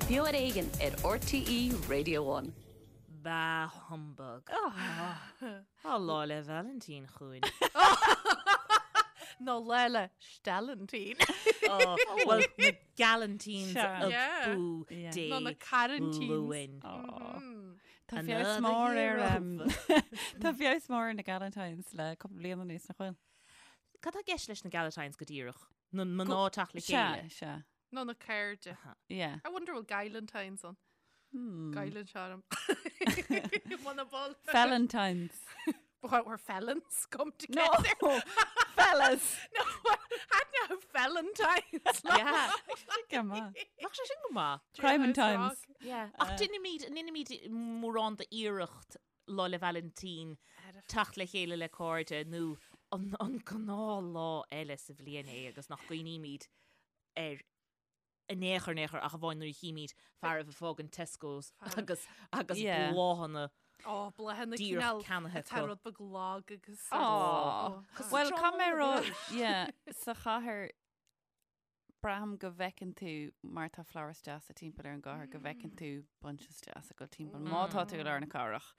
Beo ar Éigean ar RTÉ Radio One. Bah humbug. Tá Lá 'le Vailintín chugainn. Nó Lá 'le Steallaintín. Bhuel, na Galantines abú Dé Nó na Carantines. Luain. Tá feabhas mór ar Tá feabhas mór ar na Galantines le cúpla bliain anuas nach bhfuil? Cad tá i gceist leis na Galantines go díreach? Na mná teacht le chéile? Sea, sea. Nó na cairde. Yeah. I wonder bhfuil Galantines ann. Gaileann charm. Wanna ball. Felantines. But where felons come together. No, fellas. No, had no felantines. Yeah. Go maith. Bheadh sé sin go maith. Crime times. Yeah. Ach deinimid, ndeinimid mórán d'iarracht Lá 'le Vailintín teacht le chéile le cairde nó an, an gnáth lá eile sa bhliain é agus nach gcuimhnímid air in aon chor in aon chor ach amháin nuair a chímid fear ag fágaint Tesco's agus agus Yeah. bláthanna Ó, bláthanna díreach cineál ceannaithe atá acu. rud beag lag agus Aw. Well, Tráth caithfidh mé a rá, mhór. yeah, sa chathair braithim go bhfeiceann tú mar tá florist deasa timpeall ar an gcathair go bhfeiceann tú bunches deasa ag dul timpeall má tá tú i lár na cathrach.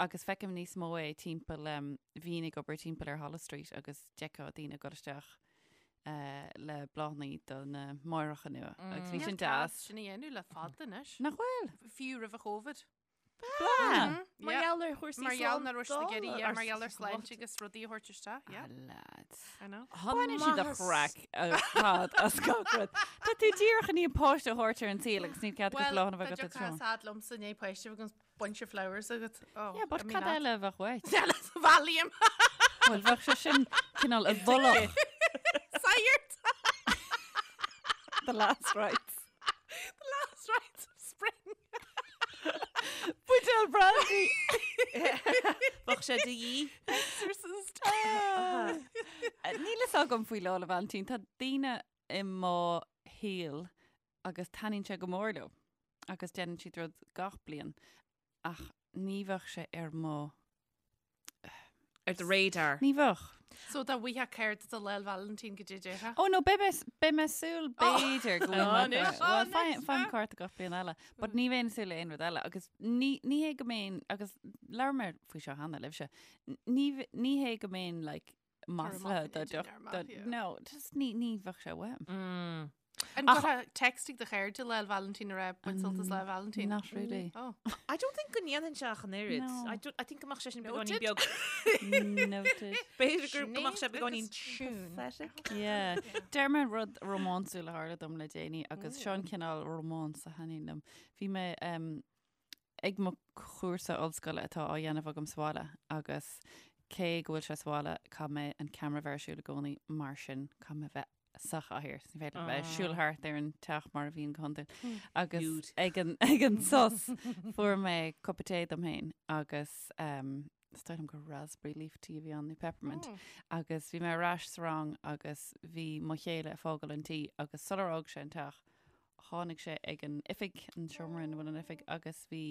Agus feicim níos mó é timpeall um, bhínn ag obair timpeall ar Holles Street agus d'fheicfeá daoine ag dul isteach uh, le bláthanna do na máithreacha nua. Agus bhí sin deas. Sin a dhéanamh le fada anois. Nach bhfuil? Fiú roimh an Covid. Bláthanna! Mar gheall ar chúrsaí Mar gheall nach raibh siad ag iarraidh, yeah, mar gheall ar sláinte. sláinte agus rudaí a thabhairt isteach, yeah. Ah, lads. I know. Baineann siad a chraic ar fad as gach rud. Tá tú díreach i ndiaidh páiste a thabhairt ar an saol agus níl cead agat Well, bláthanna a bheith tá agat deoch tráth. sad liomsa i ndiaidh páiste a bheith agus bunch of flowers agat. Oh, Yeah, but I mean cad that. eile a bheadh uait? Eile sa Valium. Bhuel, bheadh sé sin cineál i bhfolach. Sagart. The last rites. The last rites of spring. Buidéal brandy. Bheadh sé de dhíth. Exorcist. Níl fhios agam faoi Lá 'le Vailintín. Tá daoine i mo shaol agus taitníonn sé go mór leo agus déanann siad rud gach bliain ach ní bheadh sé ar mo Ar do radar. Ní bheadh. So dá bhfaighfeá cárta do Lá 'le Vailintín goidé a déarfá. Oh no, beidh mé, beidh mé ag súil b'fhéidir go bhfuil mé Anois, Well, faighim, anois, faighim cárta gach bliain eile, but ní bheinn ag súil le aon rud eile agus ní, ní hé go mbeinn, agus labhair mé faoi seo cheana libhse, ní, ní hé go mbeinn like maslaithe do idir deoch, ar do, maith, yeah. no, just ní, ní bheadh sé uaim. Mm. An gcuirfeá text chuig do chairde Lá 'le Vailintín a rá bain sult as Lá 'le Vailintín? Not really. Oh. I don't think go ndéanfainn sé ach an oiread. No. I, don't, I think go mbeadh sé sin Noted. beagáinín beag. Noted. B'fhéidir go mbeadh sé beagáinín Siún. pathetic. Yeah. Deir mé rud rómánsúil a tharla dom le déanaí agus seo an cineál rómáns a thaitníonn liom. Bhí mé um, ag mo chúrsa ollscoile atá á dhéanamh agam sa bhaile agus cé go bhfuil sé sa bhaile caithfidh mé an ceamara bheith ar siúl i gcónaí mar sin caithfidh mé bheith sa chathaoir. Ní féidir liom bheith ag siúl thart ar an teach mar a bhíonn go hiondúil. Agus ag an, ag an sos fuair mé cupa tae dom féin agus um, is dóigh liom gur raspberry leaf tea a bhí ann nó peppermint. Agus bhí mé ar ais sa rang agus bhí mo chéile ag fágáil an tí agus sular fhág sé an teach tháinig sé ag an oifig, an seomra ina bhfuil an oifig, agus bhí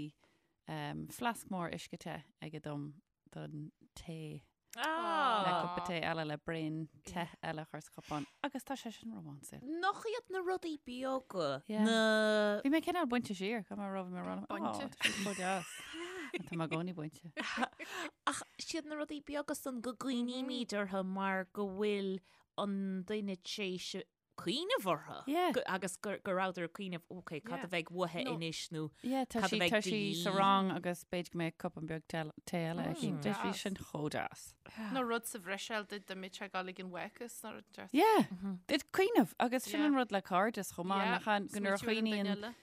um, fleasc mór uisce te aige dom don tae le Ah. cupa tae eile le braon te eile a chur sa chupán. Agus tá sé sin rómánsúil. Nach iad na rudaí beaga Yeah. na Bhí mé cineál bainte siar, caithfidh mé a rá bhí mé rá Bainte. Tá sé chomh deas. Tá mé i gcónaí bainte. Ach siad na rudaí beaga san go gcuimhnímid orthu mar go bhfuil an duine tar éis cuimhneamh orthu. Yeah. Go- Agus gur go rabhadar ag cuimhneamh, ok, cad Yeah. a bheidh uaithi No. anois nó Yeah, tá Cad a sí bheidh tá de sí sa dhíth? rang agus b'fhéidir go mbeidh cupán beag te tae eile aici. Mm. Bhí Deas. sin chomh deas. Nó rud sa Bhruiséil duit dá mbeadh sé ag dul ag an bhfácas nó rud deas. Yeah, Did cuimhneamh agus sin Yeah. an rud le cairdeas chomh maith Yeah, nach an- go nuair a smaoitiú ar an duine chuimhníonn eile.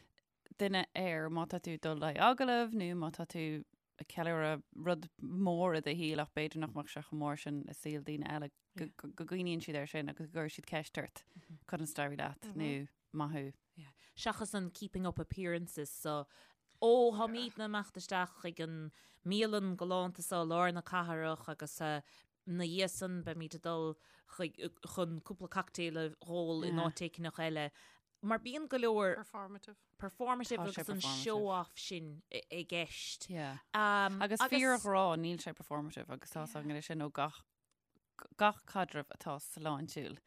duine air má tá tú ag dul le agallamh nó má tá tú ag ceiliúradh rud mór i do shaol ach b'fhéidir nach mbeadh sé chomh mór sin i saol daoine eile go go- go gcuimhníonn siad air sin agus go gcuireann siad ceist ort conas a d'éirigh leat nó maith thú. Seachas an keeping up appearances so ó táimidne ag imeacht isteach chuig an mbialann galánta seo i lár na cathrach agus eh, ina dhiaidh san beimid ag dul chuig chun cúpla cocktail a dh'ól in Yeah. áit éigineach eile. Mar bíonn go leor Performative. performative Tá sé agus an performative. show-off sin i i gceist. Yeah. Um, Agus fíorghrá níl sé performative agus tá san sin ó gach gach caidreamh atá sláintiúil.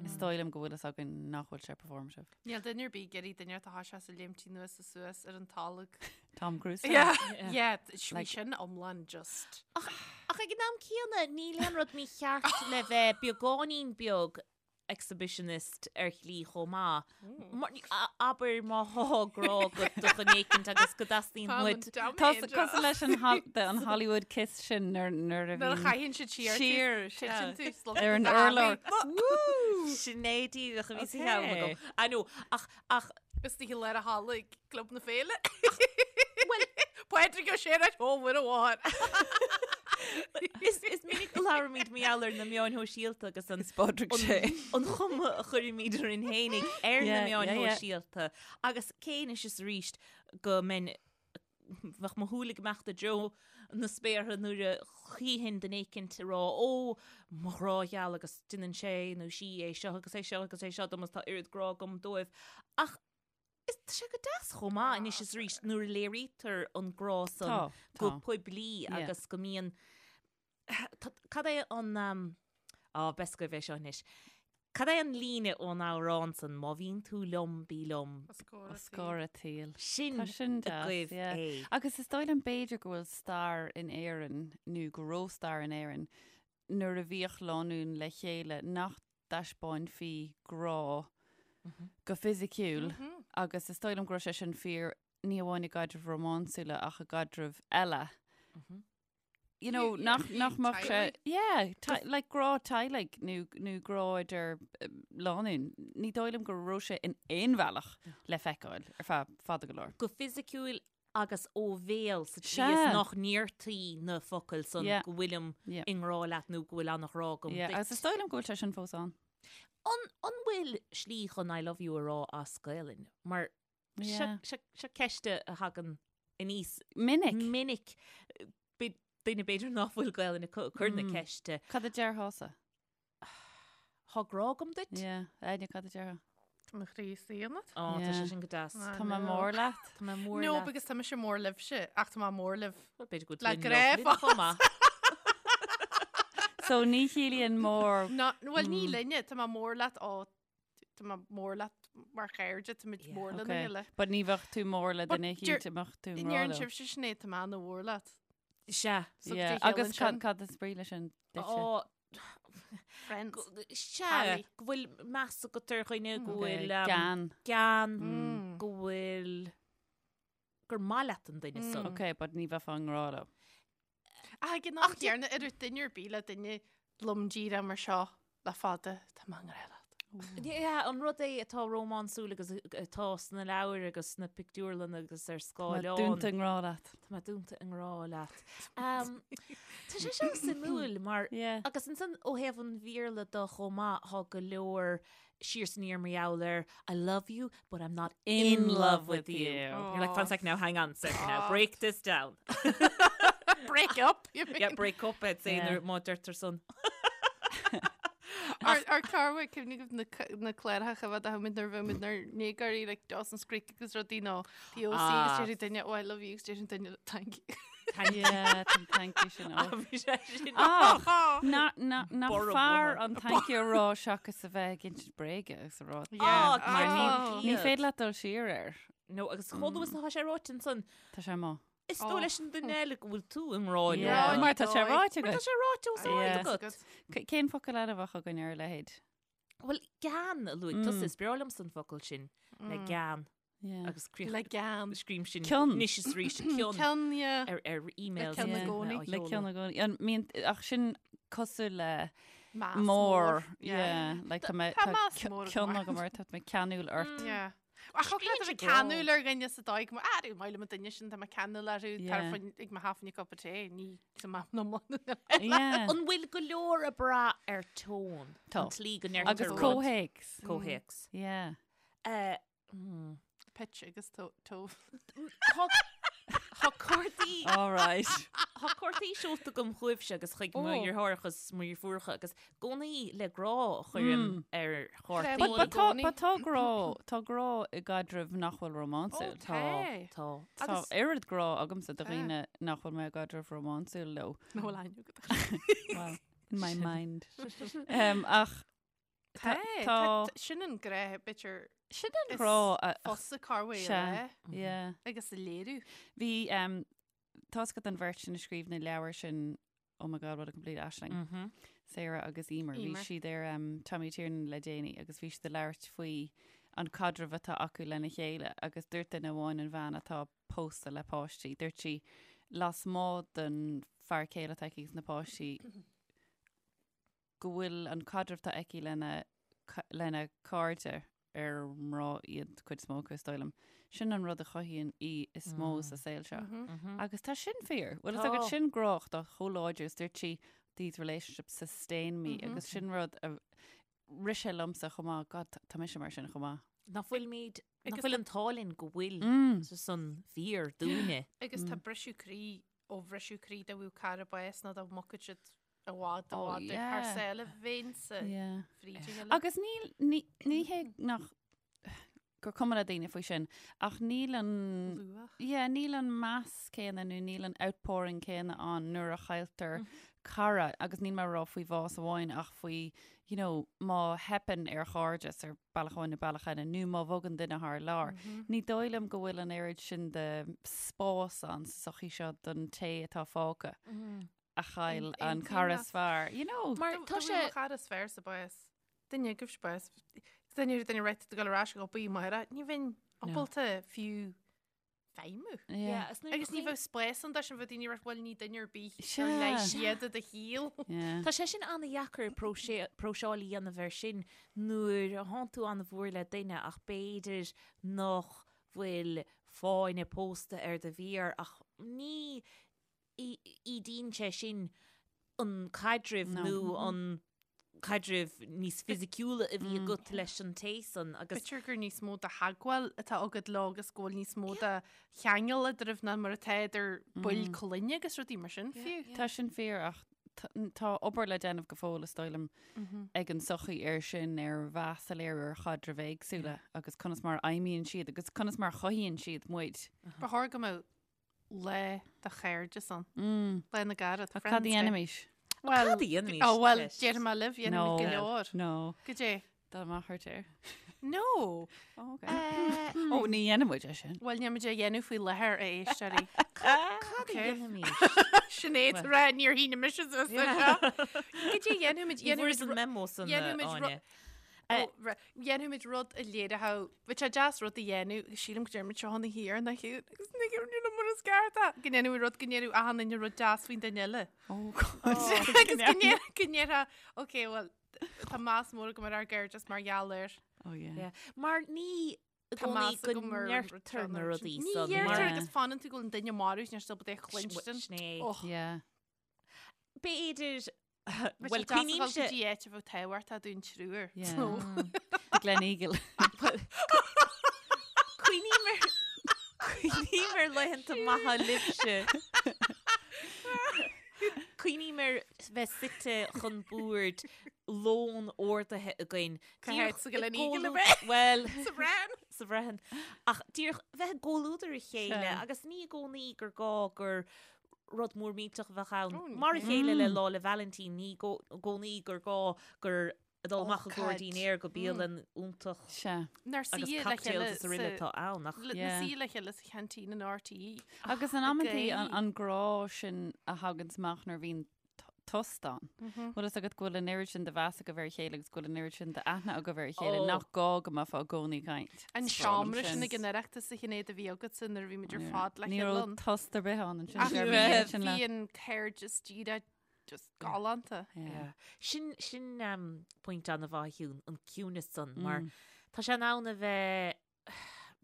Is dóigh liom go bhfuil fhios againn nach bhfuil sé performative. Níl duine ar bith ag iarraidh duine atá sé sa léimtí anuas is suas ar an tolg. Tom Cruise. Yeah, yeah, bhí sin iomlán just. Ach ag an am céanna, níl aon rud mícheart le bheith beagáinín beag exhibitionist ar shlí chomh maith. Abair má thá grá agat do dhuine éicint agus go dteastaíonn uait. Tá cosúil leis an an Hollywood kiss sin nuair nuair a Nuair a bhíonn chaitheann siad siar siar titeann tú slán ar an urlár. Sin é díreach a bhí sa cheann agam. I know, ach ach Is tí le a halla ag Club na Féile. Well, Pádraig Ó Sé ó bhfuil a mháthair. Is is minic go labhraímid mar gheall ar na meáin shóisialta agus an Pádraig Sé. an chuma a chuirimid orainn fhéinig ar na meáin shóisialta agus cé anois is arís go mbeinn bheadh mo shúil ag imeacht i dtreo na spéartha nuair a chífinn duine éicint ag rá ó mo ghrá gheal agus déanann sé nó sí é seo agus é seo agus é seo dom agus tá oiread grá agam dóibh. Ach is tá sé go deas chomh maith anois is arís nuair a léirítear an grá san Tá, go tá. poiblí Yeah. agus go mbíonn Tá- Cad é an um, á b'fhios agaibh é seo anois. Cad é an líne ón amhrán san má bhíonn tú liom bí liom Os comhair an tsaoil. Sin Tá sin deas, agaibh yeah. é. Agus is dóigh liom b'fhéidir go bhfuil stair in Éirinn nó go raibh stair in Éirinn nuair a bhíodh lánúin le chéile nach dtaispeáinfí grá go fisiciúil agus is dóigh liom go raibh sé sin fíor ní amháin i gcaidrimh rómánsúla ach i gcaidrimh eile. You know, nach, nach mbeadh sé, yeah, like grá teaghlaigh nó, nó grá idir lánúin. Ní dóigh liom go raibh sé in aon bhealach le feiceáil ar feadh fada go leor. Go fisiciúil agus ó bhéal sa tslí is nach ndéartaí na focail san go bhfuilim i ngrá leat nó go bhfuil an-ghrá agam duit. Agus is dóigh liom go bhfuil sé sin fós ann. An bhfuil slí chun I love you a rá as Gaelainn? Mar seo ceist a thagann aníos minic. Minic. Duine b'fhéidir nach bhfuil Gaelainn acu ag cur na ceiste. Cad a déarfása? Tá grá agam duit. Yeah. Áine, cad a déarfá? Tá mo chroí istigh ionat. Ó, tá sé sin go deas. Tá mé mór leat. Tá mé mór leat. No, because tá mise mór libhse, ach tá mé mór libh. B'fhéidir go Le grá chomh maith. So ní chiallaíonn mór. No, bhuel ní linne, tá mé mór leat ó tá mé mór leat mar chairde, tá muid mór lena chéile. But ní bheadh tú mór le duine éicint a mbeadh tú i ngrá Ndeireann leo. sibhse sin é, tá mé ana-mhór leat. Sea. So Yeah, agus cad is brí leis sin duitse? Ó, Friends. Sea, go bhfuil meas agat ar dhuine, go bhfuil Gean. gean, go bhfuil gur maith leat an duine san. Ok, but ní bheifeá i ngrá leo. Ach ag an am céanna, ar duine ar bith le duine lom díreach mar seo le fada, tá mé i ngrá leat. Yeah, an rud é atá rómánsúil agus atá sna leabhair agus sna pictiúrlanna agus ar Tá mé scáileán. dúnta i ngrá leat. Tá mé dúnta i ngrá leat. Tá sé seo suimiúil mar Yeah. agus ansan ó thaobh an Bhéarla de chomh maith tá go leor siar is aniar mar gheall ar I love you but I'm not in love with you. You're like, one sec now, hang on a second now, break this down. Break up, you mean? Yeah, break up, I'd say, Yeah. nuair má deirtear san. Ar chlár cuimhne agaibh na na cláracha a bheith a muid nuair a bheadh muid inár ndéagóirí like Dawson's Creek agus rudaí nó The OC Ah. agus déarfaidh duine oh I love you agus déarfaidh duine thank you. Thank you. Yeah, tá an thank you sin Ah, ó. bhí sé sin. Ach, na, na, nach Borradh fearr bunaidh. an thank you a rá seachas a bheith ag insint bréige agus a rá. Ah, Mar ní, Ah. ní féidir leat dul siar air. No, agus chomh luath is atá sé ráite ansan, Tá sé amuigh. Is dóigh leis an duine eile go bhfuil tú i ngrá leo. Yeah, mar tá sé ráite Mar tá agat. sé ráite os ard Yeah. agat. C- Cén focal eile a bheadh againn ar a leithéid? Bhuel, gean a luaigh tusa, is breá liomsa an focal sin, le gean Yeah. agus críoch Le gean. scríobhaim sin Cion. anois is arís cion Cion, yeah. ar ar emails. Le cion i gcónaí. Le cion i gcónaí. An mbíonn, ach sin cosúil le Meas mór. mór. Yeah. Like tá mé Tá tá meas ci- mór cion agam agam ort, tá mé ceanúil ort. Yeah. Ach thug leat a bheith ceanúil ar dhuine sa dóigh go mbeadh, ah, maith liom an duine sin, tá mé ceanúil orthu, tar Yeah. ag mo half cup of tea, ní sa map na mbun. Yeah. An bhfuil go leor ag brath ar tone? Tá. An tslí go ndeirtear Agus rud. comhthéacs. Comhthéacs. Yeah. Eh, Pitch agus tó. Tá tá cártaí All right. Tá cártaí seolta agam chugaibhse agus chuig mo Ó. dheartháireacha agus mo dheirfiúracha agus i gcónaí le grá a chuirim ar chártaí. But, but tá, gcónaí. but tá grá, tá grá i gcaidreamh nach bhfuil rómánsúil. Tá. Tá. Tá Agus oiread grá agamsa do dhaoine nach bhfuil mé i gcaidreamh rómánsúil leo. Nach bhfuil aithne agat. Well, in my mind. Um, ach. Tá, tá, sin an grá, b'fhéidir. Sin an grá a. Fusa carway a Yeah. Agus a léiriú. Bhí, um, tá a fhios agat an bheirt sin a scríobh na leabhair sin, Oh my God, what a complete Aisling. Mm -hmm. Sarah agus Emer. Bhí siad ar um, Tommy Tiernan le déanaí agus bhí siad ag labhairt faoi an caidreamh atá acu lena chéile agus dúirt duine amháin an bhean atá pósta le páistí. Dúirt sí lasmuigh den fear céile atá aici agus na páistí go bhfuil an caidreamh atá aici lena lena cairde ar mná iad cuid is mó acu is dóigh liom. Sin an rud a chothaíonn í is mó sa saol seo. Agus tá sin fíor. Bhfuil a fhios agat sin grá atá chomh láidir is dúirt sí these relationships sustain me agus sin rud a rith sé liomsa chomh maith, God, tá mise mar sin chomh maith. Nach bhfuilimid, nach bhfuil an t-ádh linn go bhfuil san fíor dúinne. Agus tá briseadh croí ó bhriseadh croí dá bhfuil cara bás nó dá mbogfadh siad i bhfad i bhfad ar thar sáile bheinnse fríd a chéile. Agus níl, ní, ní hé nach gur cuma le daoine faoi sin, ach níl an, Luach. yeah, níl an meas céanna nó níl an outpouring céanna ann nuair a chailltear cara, agus níl mé ag rá faoi bhás amháin ach faoi, you know, má theipeann ar chairdeas ar bealach amháin nó bealach eile, nó má bhogann duine thar lear. Ní dóigh liom go bhfuil an oiread sin de spás ann sa sochaí seo don té atá fágtha. a chaill an cara is fearr, you know. Mar tá sé. Mo chara is fearr sa bás. Duine agaibhse bás. Duine ar duine réite ag dul ar ais go bí maire, ní bheinn ábalta fiú feidhmiú. Yeah. Agus ní bheadh spás ann dó sin bheadh daoine ag rá bhuel ní duine ar bith ar leis iad i do shaol. Tá sé sin an-dheacair próiseáil a dhéanamh air sin nuair a thánn tú an-mhór le duine ach b'fhéidir nach bhfuil fáinne pósta ar do mhéar ach ní ídíonn sé sin an caidreamh nó an caidreamh níos fisiciúla a bhí agat leis an té san agus. B'fhéidir gur níos mó de theagmháil atá agat leo agus go bhfuil níos mó de cheangal eadraibh ná mar atá idir baill clainne agus rudaí mar sin fiú. Tá sin fíor ach tá obair le déanamh go fóill is dóigh liom ag an sochaí ar sin ar mheas a léiriú ar chaidrimh éagsúla agus conas mar a fheidhmíonn siad agus conas mar a chothaíonn siad muid. Ba chóir go mbeadh Lá do chairdeas ann. Lá na gcarad. Ach cad a dhéanfaimis? Well, Cad a dhéanfaimis? Ó, bhuel, déarfaidh mé libh, dhéanfaimid go leor. No. Goidé? Dá mbeadh ort air. No! Ó, ok. Ó, ní dhéanfaimid é sin. Bhuel, níl muid á dhéanamh faoi láthair, a éisteoirí. Cad a dhéanfaimis? Sinéad ag rá, níor shínigh mise suas leis seo. Goidé a dhéanfaimid? Ní bhfuair an memo san, Áine. Dhéanfaimid rud a léireodh, bheadh sé deas rud a dhéanamh, agus sílim go deir muid seo ina thiar na hiúd, agus ní ghearr mar is ceart é. Go ndéanfaimid rud, go ndéarfadh achan duine rud deas faoin duine eile. Oh God. Agus go ndéar- go ndéarfá, ok, well, tá meas mór agam ar ár gcairdeas mar gheall air. Oh yeah. Yeah. Mar ní i Tá gcónaí meas go agam ar an rud ndeirtear seo na nó rudaí Ní san. dheirtear Mar agus fanann tú go bhfuil an duine marbh, níl siad ábalta é a chluinstin. Sin é. Och. Yeah. B'fhéidir Bhuel, Bhuel, cuimhnímse go dtí áit a bheadh tábhachtach dúinn triúr. Yeah. The Gleneagle. Cuimhním ar Cuimhním ar laethanta maithe libhse. Cuimhním ar bheith suite chun boird lón ordaithe againn. Cá háit sa Gleneagle a bheith? Bhuel, Sa Bhreathain. sa Bhreathain. Ach díreach bheith i gcomhluadar a chéile agus ní i gcónaí gur gá gur rud mór millteach a bheadh ann. Mar a chéile le Lá 'le Vailintín, ní i gcónaí gur gá gur ag dul amach i gcomhair dinnéir go bialann iontach Sea. Nár agus suí le cocktails chéile is araile atá ann ach Na Yeah. suí le chéile sa cheaintín in RTÉ. Agus in amantaí Ag an an grá sin a thaganns amach nuair a bhíonn tost ann. Bhfuil fhios agat go bhfuil an oiread sin de mheas agaibh ar a chéile agus go bhfuil an oiread sin d'aithne agaibh ar a chéile Oh. nach gá go mbeifeá i gcónaí ag caint. An seomra sin ag an Oireachtas a Shinéad a bhí agatsa nuair a bhí muid ar fad le Ní chéile raibh ann. tost ar bith ann ansin. Ach Bhí bhí an sin le- bhí an cairdeas díreach just galánta. Yeah. Sin sin um, pointe an-mhaith a Shiún, an ciúnas san mar tá sé in ann a bheith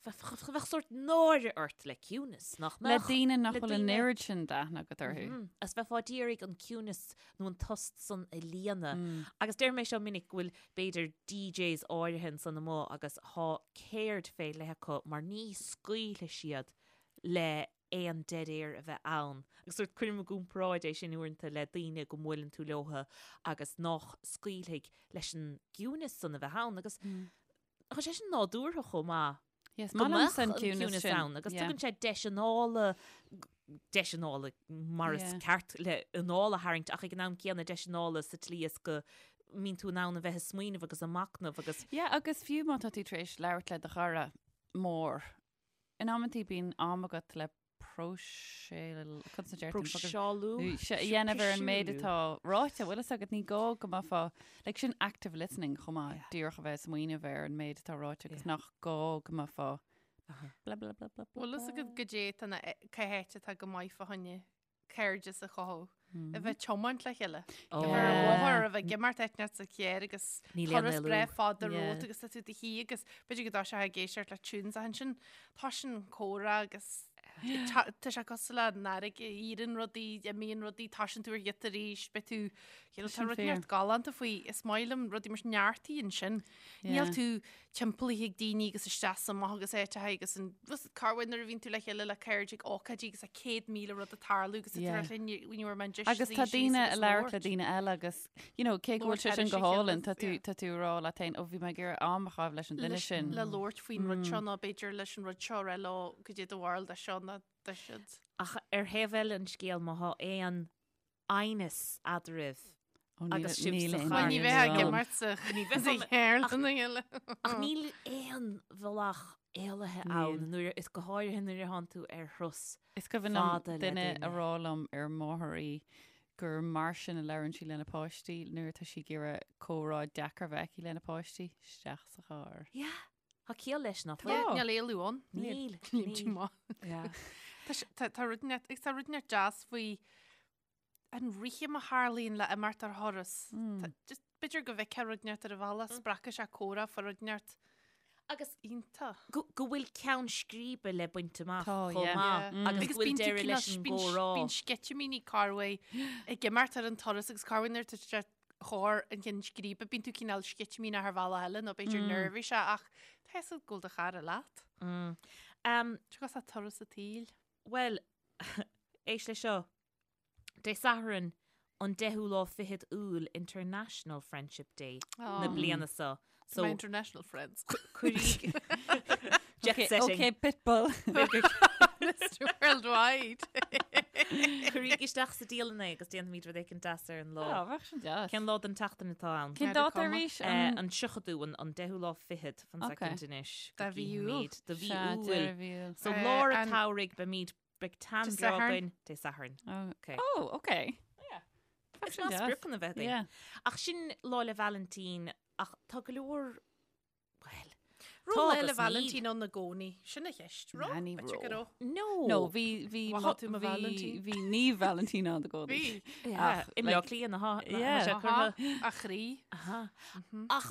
Bheadh sórt náire ort le ciúnas, nach Le mbeadh? daoine nach Le bhfuil an daoine- oiread sin d'aithne agat orthu. Mhm. Agus bheifeá d'iarraidh an ciúnas nó an tost san a líonadh. Agus deir mé seo minic go bhfuil b'fhéidir DJs áirithe ansan amuigh agus thá ceird fé leith acu mar ní scaoilfidh siad le aon dead air a bheith ann. Agus sórt cuirim i gcomparáid é sin uaireanta le daoine go mbuaileann tú leotha agus nách scaoilfidh leis an gciúnas san a bheith ann. Agus Tá sé sin nádúrtha chomh maith. Yes, Go maith mbeadh liomsa an an ciúnas ciúnas sin. ann agus Yeah. tugann sé deis anála, deis anála mar is Yeah. ceart le anáil a tharraingt ach ag an am céanna deis anála sa tslí is go. mbíonn tú in ann a bheith ag smaoineamh agus ag machnamh agus. Yeah, agus fiú má tá tú tar éis labhairt le do chara mór, in amantaí bíonn am agat le próiseáil, conas a deir tú an focal? Próiseálú? Sea, a dhéanamh ar an méid atá ráite, bhfuil fhios agat, ní gá go mbeifeá, like sin active listening chomh maith, díreach a bheith ag smaoineamh ar an méid atá ráite agus nach gá go mbeifeá blah blah blah blah blah. Bhfuil fhios agat goidé tá na, cá háit atá go maith fá choinne cairdeas a chothú, a bheith ag tiomáint le chéile. A bheith ar an bhóthar, a bheith ag imeacht áit inteacht sa charr agus Níl aon turas éalú. breá fada Yeah. romhat agus tá tú i do shuí agus b'fhéidir go dtá sé ag éisteacht le tunes ach ansin tá sin comhrá agus tá tá sé cosúil le an fharraige, éiríonn rudaí, imíonn rudaí, tosaíonn tú ar ghiota arís, beidh tú, you know, tá sin rud fíor. neart galánta faoi, is maith liom rudaí mar sin neartaíonn sin. Níl Yeah. tú timpeallaithe ag daoine agus isteach is amach agus áiteacha agus an corruair nuair a bhíonn tú le chéile le cairde ag ócáidí agus tá 100,000 rud ag tarlú agus Yeah. tá linn when you were meant just Agus tá daoine ag labhairt le daoine eile agus, you know, cé go bhfuil sé sin go hálainn, tá tú tá tú ag rá leat féin, ó bhí mé ag iarraidh am a chaitheamh leis an duine sin. Le labhairt faoin rud seo nó b'fhéidir leis an rud seo rá leo goidé do bharúil de seo nó de siúd. Ach ar thaobh eile an scéil má thá aon aighneas eadraibh agus sibh sa charr. Ní bheifeá ag imirt sa charr lena chéile. Ach níl aon bhealach éalaithe ann nuair is go háirithe nuair a thánn tú ar thuras Is cuimhin liom fada le duine duine. a rá liom ar máthair í gur mar sin a labhrann sí lena páistí nuair atá sí ag iarraidh comhrá deacair a bheith aici lena páistí, isteach sa charr. Yeah, tá ciall leis nach Tá. bhfuil? Níl éalú ann. Níl. Níl. Níl. Maith. Yeah. Tá sé- Tá tá rud inteacht agus tá rud inteacht deas faoi an rithim a tharlaíonn le imeacht ar thuras. Tá- just B'fhéidir go bhfeicfeá rud inteacht ar an bhealach, spreagfaidh sé comhrá fá rud inteacht Agus iontach. go go bhfuil ceann scríbe le baint amach Tá, chomh yeah. maith Yeah. agus go bhfuil bíonn tú deireadh cineál- leis an bíonn- gcomhrá. Bíonn sceitimíní corruair ag imeacht ar an turas agus corruair nuair atá sé chor an chinn scríbe, bíonn tú cineál sceitimíneach ar bhealach eile nó b'fhéidir neirbhíseach ach tá fhios agat go bhfuil do chara leat. Um, Tá cosúil le turas an tsaoil. Bhuel, éist le seo. Dé Sathairn an deichiú lá fichead Iúil International Friendship Day na bliana seo. So my international friends. Cuiríg Jet Okay, setting. okay, Pitbull. Mr Worldwide. Cuiríg isteach sa dialann é agus déanfaimid rud éicint deas ar an lá. Á, bheadh sin deas. Cén lá den tseachtain atá ann? Cén dáta arís? Eh, An tríochadú, an an deichiú lá fichead, fan Okay. soicind anois. go De mhí Iúil. gcífimid. De mhí Sea, Iúil. deireadh mhí Iúil. So Eh, lár an an- tsamhraidh beimid Beidh tan Dé breá Sathairn. againn Dé Sathairn. Oh, Okay. oh, okay. Is maith spriocanna a bheith againn. Yeah. Ach sin Lá 'le Vailintín ach tá go leor bhuel, Raibh tá Lá 'le agus níl. Vailintín ann i gcónaí. Sin an cheist. Raibh? Ná, ní B'fhéidir go raibh. raibh. No. No, bhí bhí Mhaith mo- tú mo bhí Vailintín. bhí Naomh Vailintín ann i gcónaí. Bhí. Yeah, Ach, I mBleá like- Cliath na Yeah. sé curtha. A chroí. Aha. Ach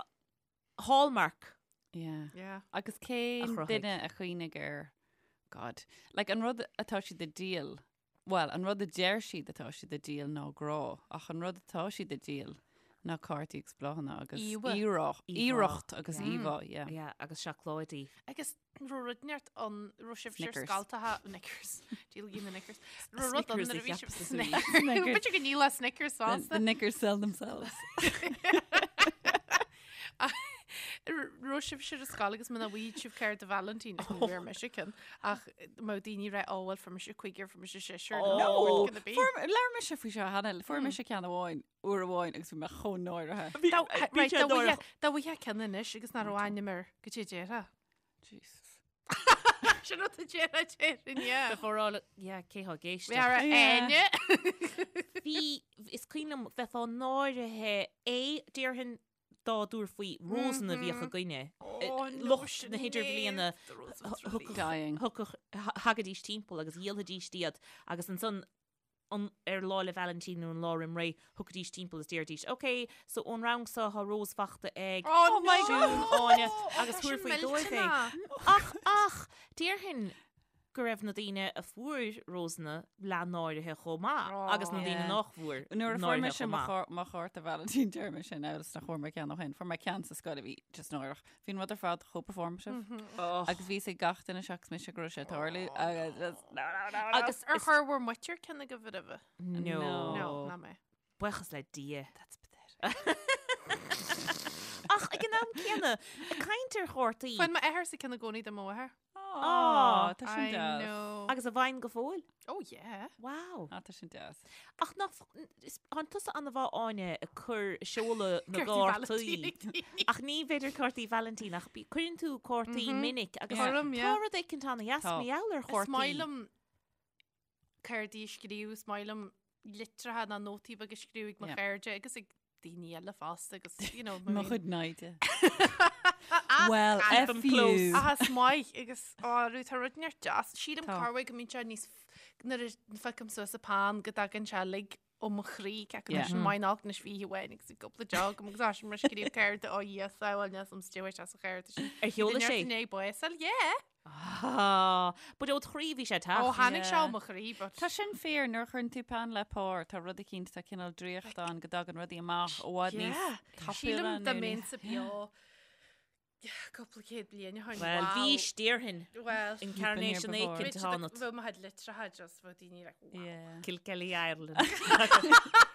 Hallmark. Yeah. Yeah. Agus A cén chruthaigh. duine a chuimhnigh air God. Like an rud atá siad ag díol, well, an rud a deir siad atá siad ag díol ná grá, ach an rud atá siad ag díol ná cártaí agus bláthanna agus Íomhá. iarracht, Íomhá, iarracht agus yeah. íomhá, yeah. Yeah, agus seacláidí. Agus raibh rud inteacht ann raibh sibh siar Snickers. scaltaithe Knickers. Díolfaidh na Knickers. Raibh rud ann Snickers nuair a a bhí cheap sibh sa Snickers. Snickers. B'fhéidir go ndíolfá Snickers The, fosta. the knickers sell themselves. Raibh sibh ar scoil agus muna bhfaigheadh sibh cárta Vailintín ní bhfuair mise ceann ach má daoine rá ó bhuel fuair mise cúigear fuair mise seisear Oh. No! what can it be? Fuair, labhair mise faoi seo cheana, fuair mise ceann amháin, uair amháin agus bhí mé chomh náirithe. Dá Bhí right, sé dá bhfuighe- náireach. dá bhfuighe ceann anois agus nach raibh ainm air goidé a déarfá. Jesus. Sin rud a déarfá déarfainn, yeah. Before all, yeah, cé thá ag éisteacht. Bhí ara Yeah. Áine. Bhí, is cuimhin liom bheifeá náirithe é, déarfainn dá dtabharfaí rósanna a bhíodh againne. Oh, no, Lucht na hidirbhliana Sinéad, Dying. Thugadh, thagaidís timpeall agus dhíolfaidís iad agus ansan an, ar Lá 'le Vailintín nó an lá roim ré, thiocfaidís timpeall is déarfaidís, ok, so ón rang seo tá rós fachta ag Oh, Oh my Siún, God. Áine agus Tá sin thabharfaí dóibh é. millteanach. Ach, ach, déarfainn go raibh na daoine a fuair rósanna leath náirithe chomh maith agus na daoine Yeah. nach bhfuair Nuair a fuair náirithe mise chomh mo maith. chár- mo chárta Vailintín deir mise now is nach bhfuair mé ceann ó shin. Fuair mé ceann sa scoil a bhí just náireach. Bhí an rud ar fad chomh performative. Oh. Agus bhí 'fhios ag gach duine seachas mise go raibh sé ag tarlú agus just no, no, no, no. Agus Ar is- chuir bhur muintir ceann agaibh roimhe? No. No. No, ná mé. Buíochas le Dia. That's pathetic. Ach ag an am céanna, ag caint ar chártaí. Fuair m'athair sa ceann i gcónaí do mo mháthair. Aw, tá sin I deas. know. Agus a bhfaigheann go fóill? Oh yeah. Wow. Ah, tá sin deas. Ach nach, tánn tusa an-mhaith Áine ag cur seoladh na gcártaí. Ach ní b'fhéidir cártaí Vailintín ach cuireann tú cártaí minic agus tá rud éicint an-dheas mar gheall ar chártaí. Is maith liom cártaí a scríobh, is maith liom litreacha ná nótaí beaga a scríobh ag mo chairde agus ag daoine eile fosta agus, you know, Mo chuid naimhde. Well, Keep 'em F you. close. Ach is maith agus á rú tá rud neart deas. Sílim Tá. corruair go mbíonn sé níos nuair a phiocam suas an peann go dtagann sé uilig ó mo chroí ceapaim Yeah. sin maith nach anois bhí amháin agus bhí cúpla deoch agam agus tá sin mar scríobh cárta ó Dhia sábháil níos am stiúir as an chárta sin. Ar sheoladh sé? Inné básáil, yeah. Ah, but ó do chroí bhí sé Ó teacht. tháinig sé Yeah. ó mo chroí, but Tá sin fíor nuair a chuireann tú peann le pár, tá rud eicínt, tá cineál draíocht ann go dtagann rudaí amach i bhfad níos Yeah. tapúla Sílim nó dá níos- mbeinnse beo cúpla céad bliain ó shin. Well, Wow. bhís déarfainn. Well, Incarnation been here before. éicint a tháinig. Bheadh mo chuid litreacha just bheadh daoine like, wow. Yeah. Kilkelly Ireland.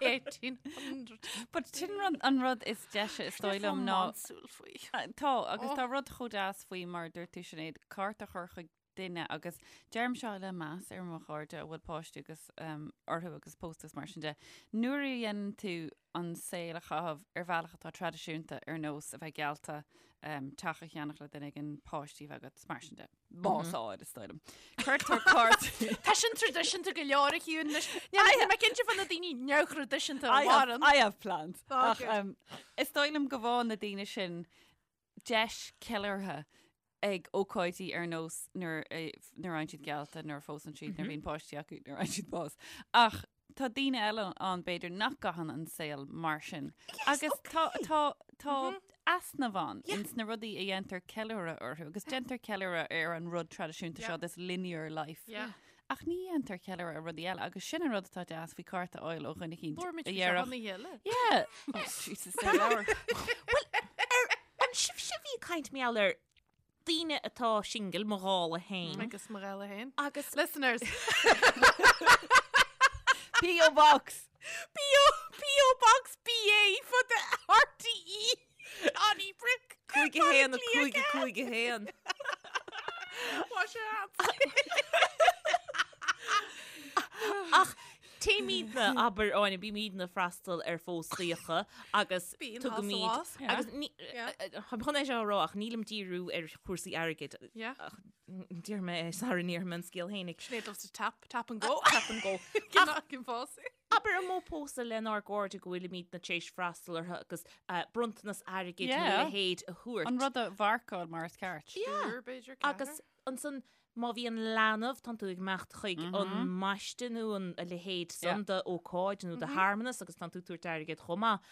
1800. But sin rud, an rud is deise is dóigh liom ná Rómánsúil faoi. Ah, Tá, agus Oh. tá rud chomh deas faoi mar a dúirt tú Sinéad, cárta a chur chuig duine agus deirim seo le meas ar mo chairde a bhfuil páistí agus um, orthu agus pósta is mar sin de. Nuair a dhéanann tú an saol a chaitheamh ar bhealach atá traidisiúnta ar nós a bheith geallta um, teach a cheannach le duine éigin páistí a bheith agat is mar sin de. Bás áid is dóigh liom. Cuirtear cárta. Tá sin traidisiúnta go leor a Shiún anois. Níl mé cinnte fá na daoine neamhthraidisiúnta a I have, mhaireann. I have plans. Oh, Ach, good. um, is dóigh liom go bhfaigheann na daoine sin deis ceiliúrtha ag ócáidí ar nós nuair a nuair a fhaigheann siad geallta, nuair a phósann siad, nuair a bhíonn páistí acu, nuair a fhaigheann siad bás. Ach tá daoine eile ann b'fhéidir nach gcaitheann an saol mar sin. Agus tá tá tá easnamh ann ins na rudaí a dhéantar ceiliúradh orthu agus déantar ceiliúradh ar an rud traidisiúnta seo, this linear life. Yeah. Ach ní dhéantar ceiliúradh ar rudaí eile agus sin an rud atá deas faoi cárta a fháil ó dhuine eicínt Labhair muid a faoi seo dhéarfadh ina chéile. Yeah. Oh, Jesus, ar leabhar. An sibhse a bhí ag caint mar gheall ar daoine atá singil, mo dhála féin. Agus mo dhála féin. Agus Listeners. P.O. Box. P.O. P.O. Box BA for the RTE. Donnybrook. 5 1 5 5 1. Wash your hands. Ach téimidne, abair, Áine, bímidne ag freastal ar phóstaíocha agus Bíonn tugaimid thá sa agus ní táim chun é seo a rá ach nílim díriú ar chúrsaí airgid Yeah. ach déarfaidh mé é sara ndéarfaidh mé an scéal fhéinig. Sinéad loves to tap, tap and go. Tap and go. Ach cén fás. Abair an mó pósadh lenár gcairde go bhfuilimidne tar éis freastal orthu agus bronntanas airgid nó a Yeah. leithéid a thabhairt. An rud a mharcáil mar is ceart. Yeah. Triúr, b'fhéidir, Agus ceathrar. ansan má bhíonn leanbh, tánn tú ag imeacht chuig an mbaiste nó an a leithéid san d'ócáid nó de shearmanas agus tánn tú ag tabhairt airgead chomh maith.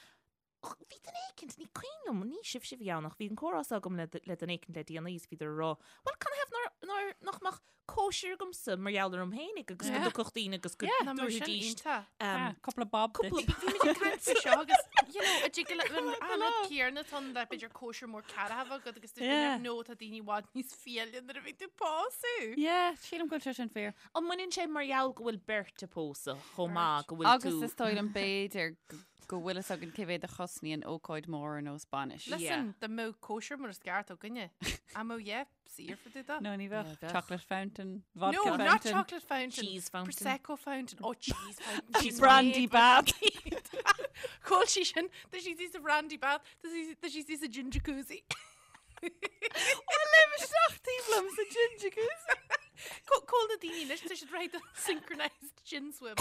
Ach bhí duine éicint, ní cuimhin liom, ní sibhse a bhí ann ach bhí an comhrá seo agam le le duine éicint le déanaí is bhíodar ag rá, bhuel canathaobh nár, nár, nach mbeadh cóisir agamsa mar gheall orm fhéinig agus go Yeah. dtiocfadh daoine agus go Yeah. Ná mar sin dtabharfaidís iontach. um, Cúpla bob duit. cúpla Bhí muid ag caint faoi seo agus you know, a dtig le an an rud céanna tá le b'fhéidir cóisir mór ceathracha agat agus dúirt Yeah. duine, no tá daoine i bhfad níos fiaile nuair a bhí tú ag pósadh. Yeah, sílim go bhfuil sé sin fíor. An mbaineann sé mar gheall go bhfuil beirt ag pósadh chomh maith go bhfuil Agus tú is dóigh liom b'fhéidir go bhfuil fhios againn cé mhéad a chosnaíonn ócáid mór ar nós bainis. Listen, dá mbeadh cóisir mar is ceart againne. An mbeadh yeah, saor fá dtaobh de. No, ní bheadh. Yeah, bheadh. Chocolate fountain, vodka No, fountain. not chocolate fountain. Cheese fountain. Prosecco fountain. Oh, cheese fountain. Cheese Brandy bath. Call sí sin, tá sí sa brandy bath, tá sí tá sí sa gin jacuzzi. Léim isteach taobh liom sa gin jacuzzi. Call na daoine anois, tá siad réidh do synchronized gin swim.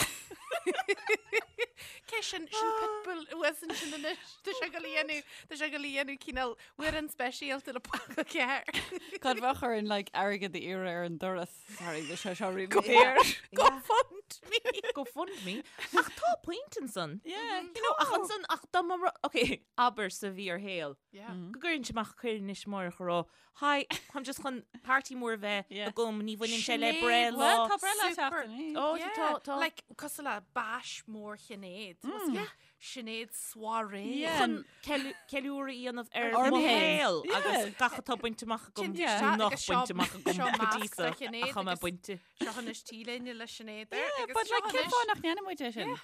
Cé sin sin Pitbull uasan sin anois, tá sé ag dul a dhéanamh, tá sé ag dul a dhéanamh cineál amhrán speisialta le Ponc 4. Cad bheadh orainn like airgead a iarraidh ar an doras? Sorry, bhí sé seo really daor. Go fund me. Go fund me. Ach tá point ansan. Yeah. You know, ach ansan, ach dá mba ru- ok, abair sa bhfíorshaol. Yeah. Go gcuireann sé amach cuireadh anois amárach a rá, Hi, táim just chun party mór a bheith Yeah. agam, ní bhaineann sé le Sinéad, breithlá. Well, tá breithlá Super. seachtain. Oh, Yeah, tá, tá. Like, cosúil le bash mór Shinéad. Yeah. Sinéad soirée. Yeah. Chun ceiliúradh a dhéanamh ar Orm mo féin. shaol Yeah. agus gach atá bainte amach agam Cinnte, Yeah. nó nach agus seo- bainte amach agam seo go dtí masc seo, le Sinéad ach tá mé agus bainte. Seo anois T-léine le Sinéad air Yeah, agus but seo like cén anois- fáth nach ndéanann muid é sin?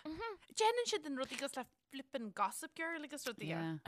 Déanann siad an rudaí cosúil le flippin' Gossip Girl agus rudaí. Yeah.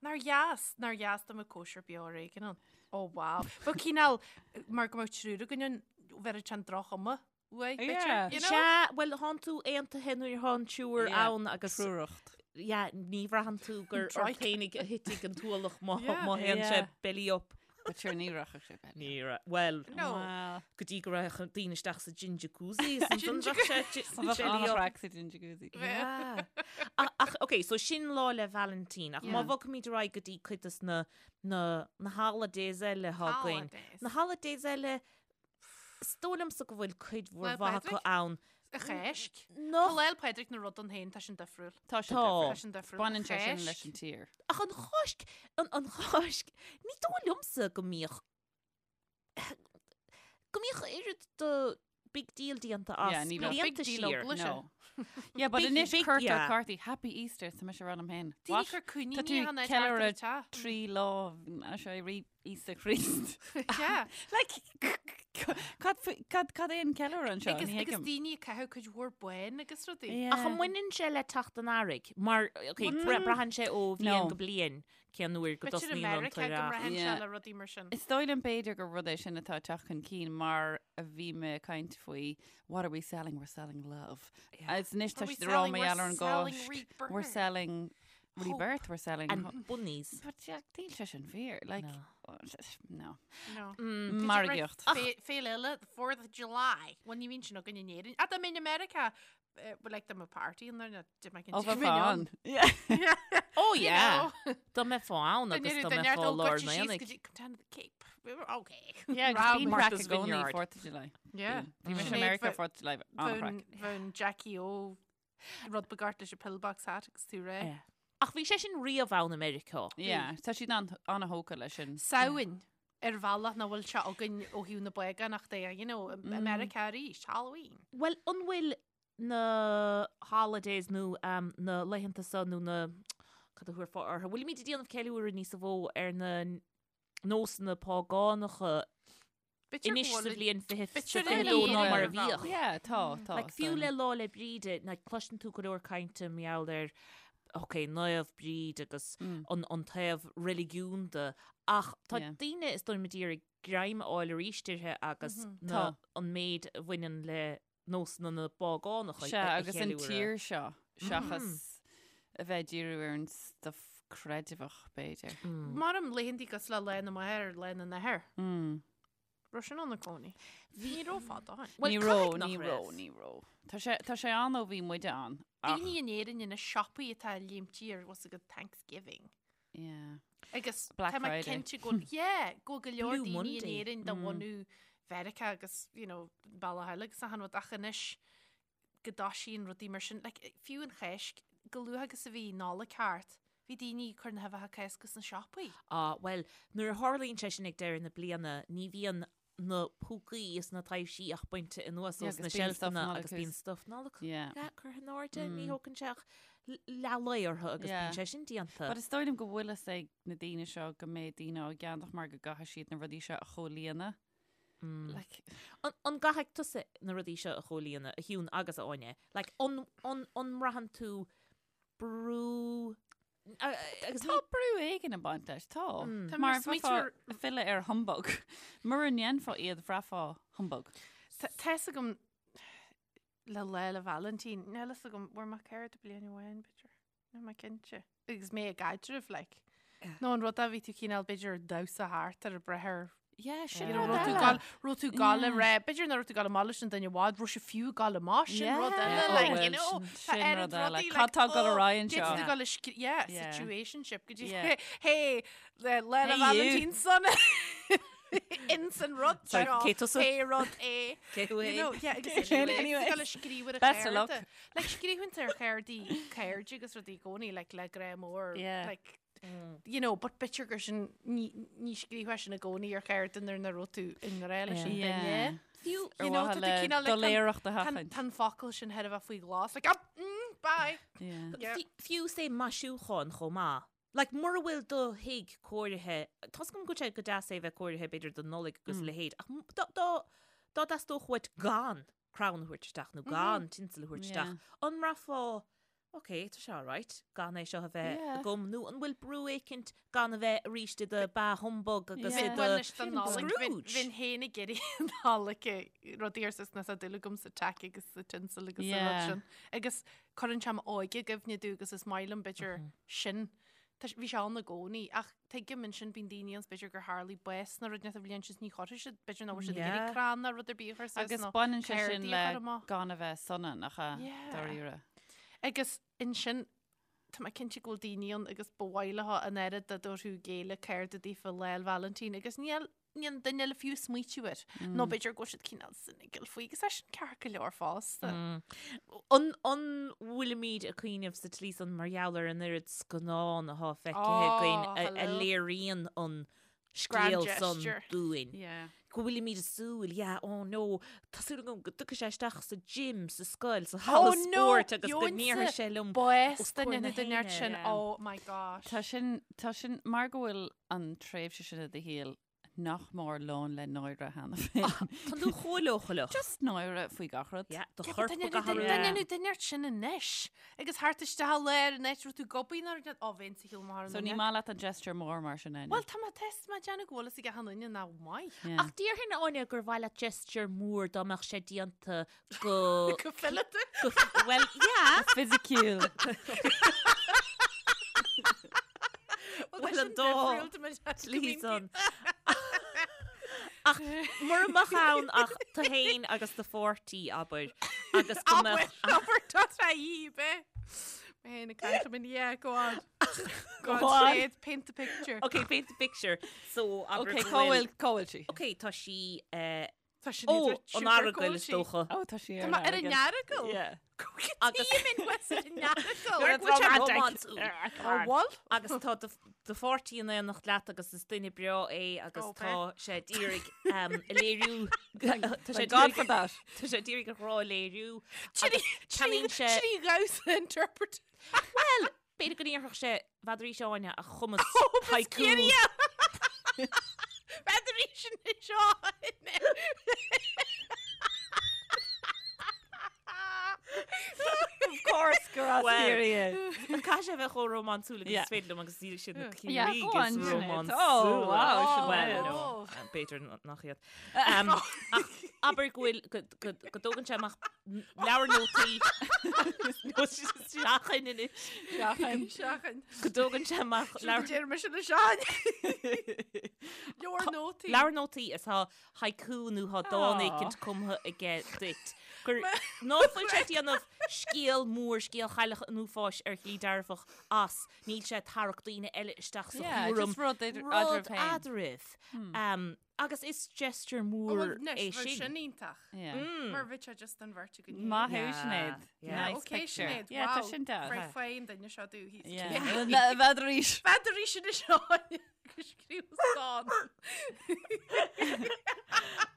Nár dheas, nár dheas dá mbeadh cóisir beo ar éigean ann. Oh wow. Bheadh cineál, mar go mbeadh triúr againn ann. bheir an droch-chuma uaidh, Yeah. b'fhéidir, you know? Sea, bhuel, thánn tú aontaithe nuair atá an triúr Yeah, ann agus Triúracht. yeah, ní bhraitheann tú gur ort Trike. féinig a thitfidh an t-ualach má Yeah. má théann sé Yeah. belly up. But sure, ní rachadh sé belly. Ní ra- Bhuel, No. Well, go dtí go raibh daoine isteach sa gin jacuzzi, is ansan bheadh sé bheadh belly up. an-chraic sa gin jacuzzi. Yeah. Ach, ach, ok, so sin Lá 'le Vailintín, ach má Yeah. bhogfaimid ar aghaidh go dtí cuid des na, na, na holidays eile atá againn. Holidays. Na holidays eile, is dóigh liomsa go bhfuil cuid mhór Lá mhaith acu Pádraig? ann. An Cháisc. Nach Tá Lá 'le Pádraig ina rud ann féin, tá sin difriúil. Tá sin Tá. difriúil. Tá sin difriúil. Baineann sé sin Cháisc. leis an tír. Ach an Cháisc, an, an Cháisc, ní dóigh liomsa go mbíodh, go mbíodh oiread de big deal déanta as Yeah, ní bheadh. blianta Big deal siar. ó Bluise. No. Yeah, but Big- anois big- cuirtear yeah. cártaí Happy Easter tá mise ag rá liom féin. Daoine What? cur Tá coiníní tú an áit ceiliúradh thart trí lá sé rí Íosa Chríost. Yeah. Like, cad fu- cad cad é an ceiliúradh anseo? Agus Ní agus thuigim. daoine ag caitheamh cuid mhór bán agus rudaí. Yeah. Ach an mbaineann sé le teacht an earraigh? Mar, ok, braitheann sé ó bhliain No. go bliain cén uair go B'fhéidir i dtosnaíonn an Meiriceá go t-earrach. mbraitheann sé Yeah. le rudaí mar sin. Is dóigh liom b'fhéidir gur rud é sin atá ag teacht chun cinn mar a bhí mé ag caint faoi what are we selling? We're selling love. Agus anois tá Are we siad ag rá selling- mar we're gheall ar an selling gCáisc. rebirth. We're selling Hope. rebirth, we're selling And ho- bunnies. But yeah, níl sé sin fíor. Like, no. No. Mm. Margaíocht. Féile eile, the 4th of July. Bhuel, ní bhíonn sin againn in Éirinn. Ach dá mbeinn i Meiriceá, eh, well, like, dá mbeadh party ann there, dá mbeadh Ó, an bheifeá mbeinn ann. Yeah. Oh You yeah. know. Dá mbeifeá ann agus dá mbeifeá lár an aonaigh. Come down to the Cape. We were okay. Yeah, agus Round bíonn craic Martha's i gcónaí Vineyard. 4th of July. Yeah. Bhí mise i Sinéad Meiriceá bhe- 4th of July, an-chraic. Bheadh Jackie O rud beag ort leis an pillbox hat agus tú réidh. Yeah. Ach bhí sé sin riamh ann i Meiriceá. Yeah, tá siad an- an-thógtha leis sin. Samhain ar bhealach nach bhfuil sé againn ó thaobh na bpágánachta de, you know, i Meiriceá arís, Halloween. Bhuel, an bhfuil na holidays nó um, na laethanta seo nó na cad a thabharfá orthu? Bhfuilimid ag déanamh ceiliúradh níos mó ar na nósanna págánacha B'fhéidir anois go sa bhfuil- bhliain B'fhéidir 2022 in ná mar a Éirinn. bhíodh. Yeah, tá, tá. Like, fiú le Lá 'le Bríde, like, cloiseann tú go leor cainte mar gheall ar ok, Naomh Bríd agus an, an taobh reiligiúnda, ach tá Yeah. daoine is dóigh liom ag iarraidh greim a fháil arís uirthi agus na, Tá. an méid a bhaineann le nósanna na bpágánach Sea, a agus an cheiliúradh. tír seo, seachas a bheith ag díriú ar an stuff creideamhach, b'fhéidir. Mar laethanta cosúil le Lá na Máthar, Lá na nAthar. Raibh sin ann i gcónaí. Ní raibh fada ó shin. Bhuel, Ní caithfidh raibh, nach ní raibh. raibh, ní raibh. Tá sé, tá sé ann ó bhí muide ann. Ach, Daoine in Éirinn ina siopaí atá léimtí ar what's a good Thanksgiving. yeah. Agus Black tá mé Friday. cinnte go yeah, go go leor Blue daoine in Monday. Éirinn de bhunadh Mheiriceá agus, you know, bealach eile agus achan rud ach anois go dtoisíonn rudaí mar sin. Like, fiú an Cháisc, chomh luath agus a bhí Nollaig thart, bhí daoine ag cur na huibheacha Cásca sna siopaí. Ah, bhuel, nuair a tharlaíonn sé sin ag deireadh na bliana, ní bhíonn na púcaí is na taibhsí ach bainte anuas Yeah, ós na agus bíonn stuff seilfeanna Nollag agus bíonn thuas. stuff Nollag Yeah. yeah, curtha in airde, ní thógann sé ach leath lae orthu agus Yeah. bíonn sé sin déanta. But is dóigh liom go bhfuil fhios ag na daoine seo go mbeidh daoine á gceannach mar go gcaithfidh siad na rudaí seo a chomhlíonadh. Like, An, an gcaithfidh tusa na rudaí seo a chomhlíonadh, a Shiún agus a Áine? Like, an, an, an mbraitheann tú brú agus Tá brú éigin ag baint leis, tá. Tá Mar mar smaointear- bheifeá ag filleadh ar humbug. Mura ndéanfá iad bhraithfeá humbug. Tá fhios agam le Lá 'le Vailintín, níl fhios agam, bhfuair mé cárta bliain amháin, b'fhéidir. Níl mé cinnte. Agus mé i gcaidreamh, like. Nó an rud a bhí tú cineál b'fhéidir damhsa thart ar a breith ar Yeah, sin You know, rud raibh tú eile. gal- raibh tú gal le Yeah. rá, b'fhéidir nach raibh tú ag gabháil amach leis an duine i bhfad, raibh sé fiú ag gabháil amach, sin rud Yeah. eile, Oh, like, you well, know, sin- tá sin oiread rud eile. rudaí, Cad like, tá ag dul ar oh, aghaidh anseo? D'fhéadfadh tú gabháil le scrí- yeah, Yeah. situationship, go dtí, Yeah. hey, le Lá 'le Hey, you. Vailintín sona. Ins an rud Sorry, seo, cé tusa? pé rud é. Cé thú You é? know, yeah, agus Anyway. anyway. Gal le scríobh ar a Best of luck. cheirde. Like, scríobhann tú ar cheirde, cairde agus rudaí i gcónaí, like, le grá mór, Yeah. like, you know, but b'fhéidir gur sin ní ní scríobhfá sin i gcónaí ar cheirde nuair nach raibh tú i ngrá leis an duine. Fiú Ar You know, mhaithe tá tú le cineál, like, doiléireacht a Tá sheachaint. tá an focal sin thar a bheith faoi ghlas, like, ah, mm, bye. Yeah. Yeah. Fi- Fiú sé maisiúchán chomh maith. Like, mura bhfuil do thigh cóirithe, tá 's agam go bhfuil sé go deas é bheith cóirithe b'fhéidir don Nollaig agus a leithéid, ach m- dá dá dá dteastódh uait gan crann a thabhairt isteach nó gan tinsel a thabhairt isteach, Yeah. an mbraithfeá. Ok, tá sé alright gan é seo a bheith agam nó an bhfuil brú éicint gan a bheith arís i do bah humbug agus i do Scrooge? Bhinn féin ag iarraidh an Nollaig rudaí ar sus tá dúil agam sa tack agus sa tinsel agus sa rud sin. Agus cuireann sé m'óige i gcuimhne domh agus is maith liom b'fhéidir sin. Bhí sé ann i gcónaí ach tuigim ansin bíonn daoine ann b'fhéidir gur tharlaigh bás nó rud inteacht an bhliain sin ní chuirfidh siad b'fhéidir nach bhfuil siad ag iarraidh crann nó rud ar bith a chur suas Agus baineann sé sin le gan a bheith sona nach ea, dáiríre. Agus ansin tá mé cinnte go bhfuil daoine ann agus ba mhaith leo an oiread dá dtabharfadh a gcéile cárta daofa Lá 'le Vailintín agus níl níl an duine eile fiú ag smaoitiú air. Nó b'fhéidir go bhfuil siad cineál cynical faoi agus é sin ceart go leor fosta. An an bhfuilimid ag cuimhneamh sa tslí san mar gheall ar an oiread scannán atá feicthe againn a a léiríonn an Grand scéal san gesture. dúinn? Yeah. Go bhfuilimid ag súil, yeah, oh no, tá súil agam go dtiocfaidh sé isteach sa gym, sa scoil, sa halla Oh no, spóirt agus go ndéarfaidh sé liom Bás os comhair duine na nó duine héinne. sin, Yeah. oh my gosh. Tá sin, tá sin, mar go bhfuil an tréimhse sin i do shaol nach mór lán le náire cheana féin. Tá tú chomh leochaileach. Just náire faoi gach rud. Yeah, do Yeah, chorp but duine ag athrú. duine nó duine ort sin anois. Agus thart isteach i lár an áit raibh tú gobaí nuair a ó bheinn sa shiúl mar So ní maith leat an gesture mór mar sin Áine? Bhuel tá mé test má déanamh go bhfuil fhios ag achan duine nach maith. Yeah. Ach déarfainn Áine gur mhaith leat gesture mór dá mbeadh sé déanta go Go fileata. go well yeah. Fisiciúil. Bhuel an dá slí san. Ach mura mbeadh ann ach tú féin agus do pháirtí, abair, agus go mbeadh Abair, tá sé dhíob, eh? Mé féin ag caint liom in yeah, go on. Go on. on. Paint the picture. Ok, paint the picture. So, abair Ok, go cá bhfuil- bhfuil, cá bhfuil sí? Ok, tá sí eh, Tá sin Ó, idir an sugar Earagail is cóisí. dócha. Ó, tá sí Tá mé ar an Earagail. Yeah. Agus Earagail. Go bhfuil sé rómánsúil. Ó, bhfuil? Agus tá do do pháirtí in éineacht leat agus is duine breá é agus Ó, tá sé d'iarraidh um, a léiriú tá sé Thank God for d'iarraidh that. tá sé d'iarraidh a ghrá a léiriú agus ceannaíonn sé 3 dhamhsa interpret. Well, b'fhéidir go n-iarrfadh sé n'fheadar Áine a chumas haiku. N'fheadar anois Áine. Of course gur as Well, Ciarraí é. Caithfidh sé a bheith chomh rómánsúil agus Yeah. is féidir liom agus níl siad na Yeah, Ciarraígh go on, is Sinéad. rómánsúla. Oh, wow, Well, Sinéad. no, b'fhéidir nach iad. Um, ach abair go bhfuil go, go, go dtógann sé amach leabhar nótaí nó seachain anois. Seachain. Seachain. Go dtógann sé amach leabhar Deir mise le Seán. Leabhar nótaí. Leabhar nótaí is tá haiku nó tá dán Aw. éicint cumtha aige duit. Gur ná fuil sé ag déanamh scéal mór, scéal Chailleach an Uafáis ar shlí dearfach as, níl sé ag tarrac daoine eile isteach sa Yeah, chúram. just rud idir- Rud eadraibh féin. eadraibh. Um, Agus is gesture mór é sin. Sin iontach. Yeah. Mar bhí sé just an bheirt againn. Maith thú Yeah, Sinéad. yeah. Nice Okay, picture. Sinéad, Yeah, tá wow. sin deas. Right fine duine seo dú hí. Yeah. N'fheadar arís. N'fheadar arís anois Áine agus scríobh dán.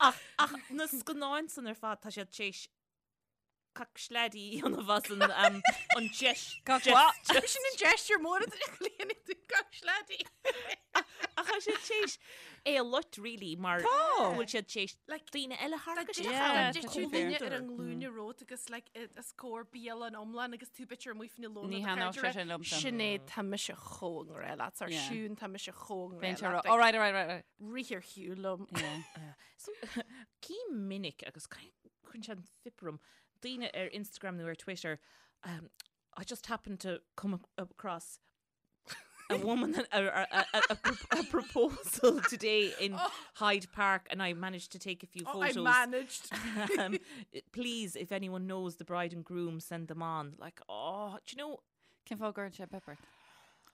Ach, ach na scannáin san ar fad tá siad tar éis Cac sleaidí a dhéanamh as an um, an deis Cac gesture. what? Sin an gesture mór a chlíonann tú cac sleaidí. Ach tá siad tar éis é a loit really mar Tá. go bhfuil siad tar éis Like, daoine eile a tharrac isteach Yeah, ann. tá Tá sé tú duine fair. ar an nglúine romhat agus like, os comhair bialann iomlán agus tú b'fhéidir amuigh faoina lóna Ní thaitneodh sé sin liomsa. Sinéad tá mise chomh i ngrá leat ar Yeah. Siún tá mise chomh i Bíonn ngrá sé leat. all right, all right, all right. Rith ar shiúl liom. Yeah. So, cím minic agus cuireann sé an fuip orm daoine ar Instagram nó ar Twitter um, I just happened to come across a woman a, a, a, a, a proposal today in oh. Hyde Park and I managed to take a few oh, photos. I managed. um, please, if anyone knows the bride and groom, send them on. Like, oh, do you know? Cén fáth a gcuireann sé pip ort?